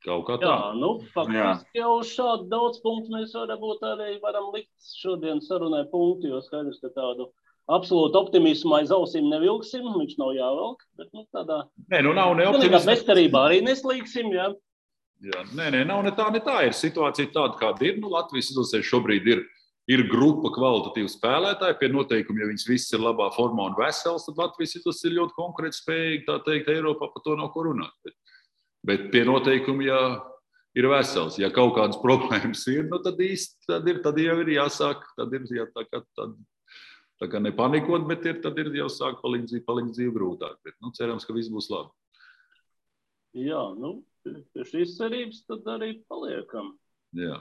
Kaut kā tā. Faktiski jau uz šādu daudz punktu mēs varam likt šodien sarunai punktu, jo skaidrs, ka tādu absolūtu optimismu aiz ausīm nevilksim, viņš nav jāvelk, bet tādā nav ne optimismu. Bezcerībā arī neslīgsim, jā. Nav ne tā, ir situācija tāda, kāda ir. Latvijas izlasē šobrīd ir grupa kvalitatīvu spēlētāju, pie noteikumi, ja viņas viss ir labā formā un vesels, tad Latvijas izlase ir ļoti konkurētspējīga, tā teikt, Eiropā par to nav ko runāt. Bet pie noteikumi, ja ir vesels, ja kaut kādas problēmas ir, tad jau ir jāsāk, tad ir tā kā nepanikot, bet tad ir jau sāk palikt dzīvi grūtāk. Bet, cerams, ka viss būs labi. Jā, pie šīs cerības tad arī paliekam. Jā.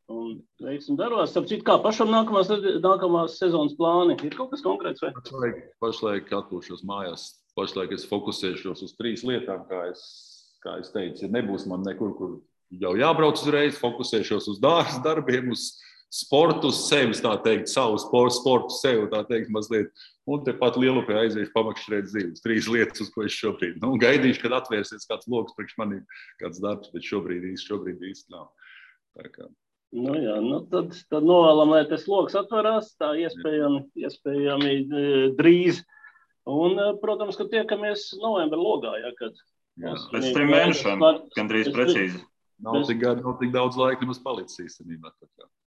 Un veiksim darbos. Starp citu, kā pašam nākamās sezonas plāni? Ir kaut kas konkrēts vai? Pašlaik atpūšos mājās. Pašlaik es fokusēšos uz 3 lietām, kā es teicu, ja nebūs man nekur, kur jau jābrauc uzreiz, fokusēšos uz dārza darbiem, uz sportu, uz sevis, tā teikt, savu sportu sev, tā teikt, mazliet. Un tepat Lielupē aiziešu pamakšķirēt dzīves. 3 lietas, uz ko es šobrīd. Gaidīšu, kad atvērsies kāds loks priekš manī, kāds darbs, bet šobrīd īsti nav. Tā kā. Tad novēlam, lai tas loks atverās, tā iespējami drīz. Un, protams, ka tiekamies novembra logā, kad pēc 3 mēnešiem, gandrīz precīzi. Nav tik daudz laika nemaz palicis īstenībā.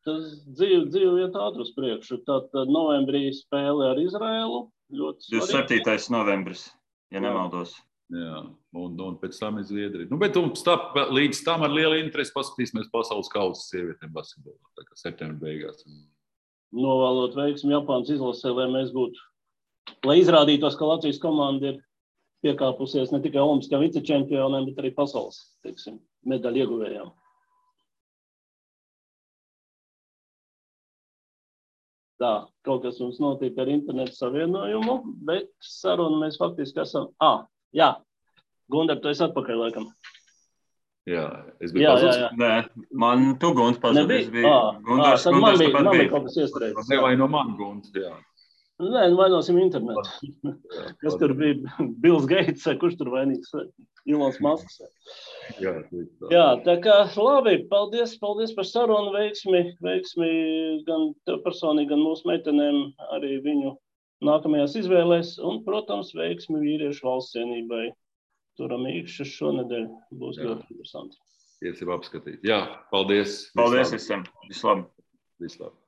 Tas dzīve iet ātri uz priekšu. Tātad novembrī spēle ar Izraēlu. 27. novembris, ja nemaldos. Jā, un pēc tam ir Zviedrija. Bet līdz tam ar lielu interesi paskatīsimies pasaules kausa sievietēm basketbolā, tā kā septembra beigās. Novēlot veiksmi Japānas izlasē, lai izrādītos, ka Latvijas komanda ir piekāpusies ne tikai olimpiskajām vicečempioniem, bet arī pasaules, medaļu ieguvējām. Tā, kaut kas mums notiek ar internetu savienojumu, bet sarunu mēs faktiski esam... Jā, Gundar, tu esi atpakaļ, laikam. Jā, es biju pazudis. Nē, man tu, Gund, pazudis. Gundars, tad man bija kaut kas iestrēdis. Nevaino man, Gund, jā. Nē, vainosim internetu. Kas tur bija? Bills Gates, kurš tur vainīgs? Ilons Masks. Jā, tā kā labi, paldies par sarunu, veiksmi gan tev personīgi, gan mūsu meitenēm, arī viņu nākamajās izvēlēs, un, protams, veiksmi vīriešu valsts cienībai. Turam īkšķis šonedēļ, būs ļoti interesanti. Iesim apskatīt. Jā, paldies. Paldies visiem. Vislabāk. Vislabāk.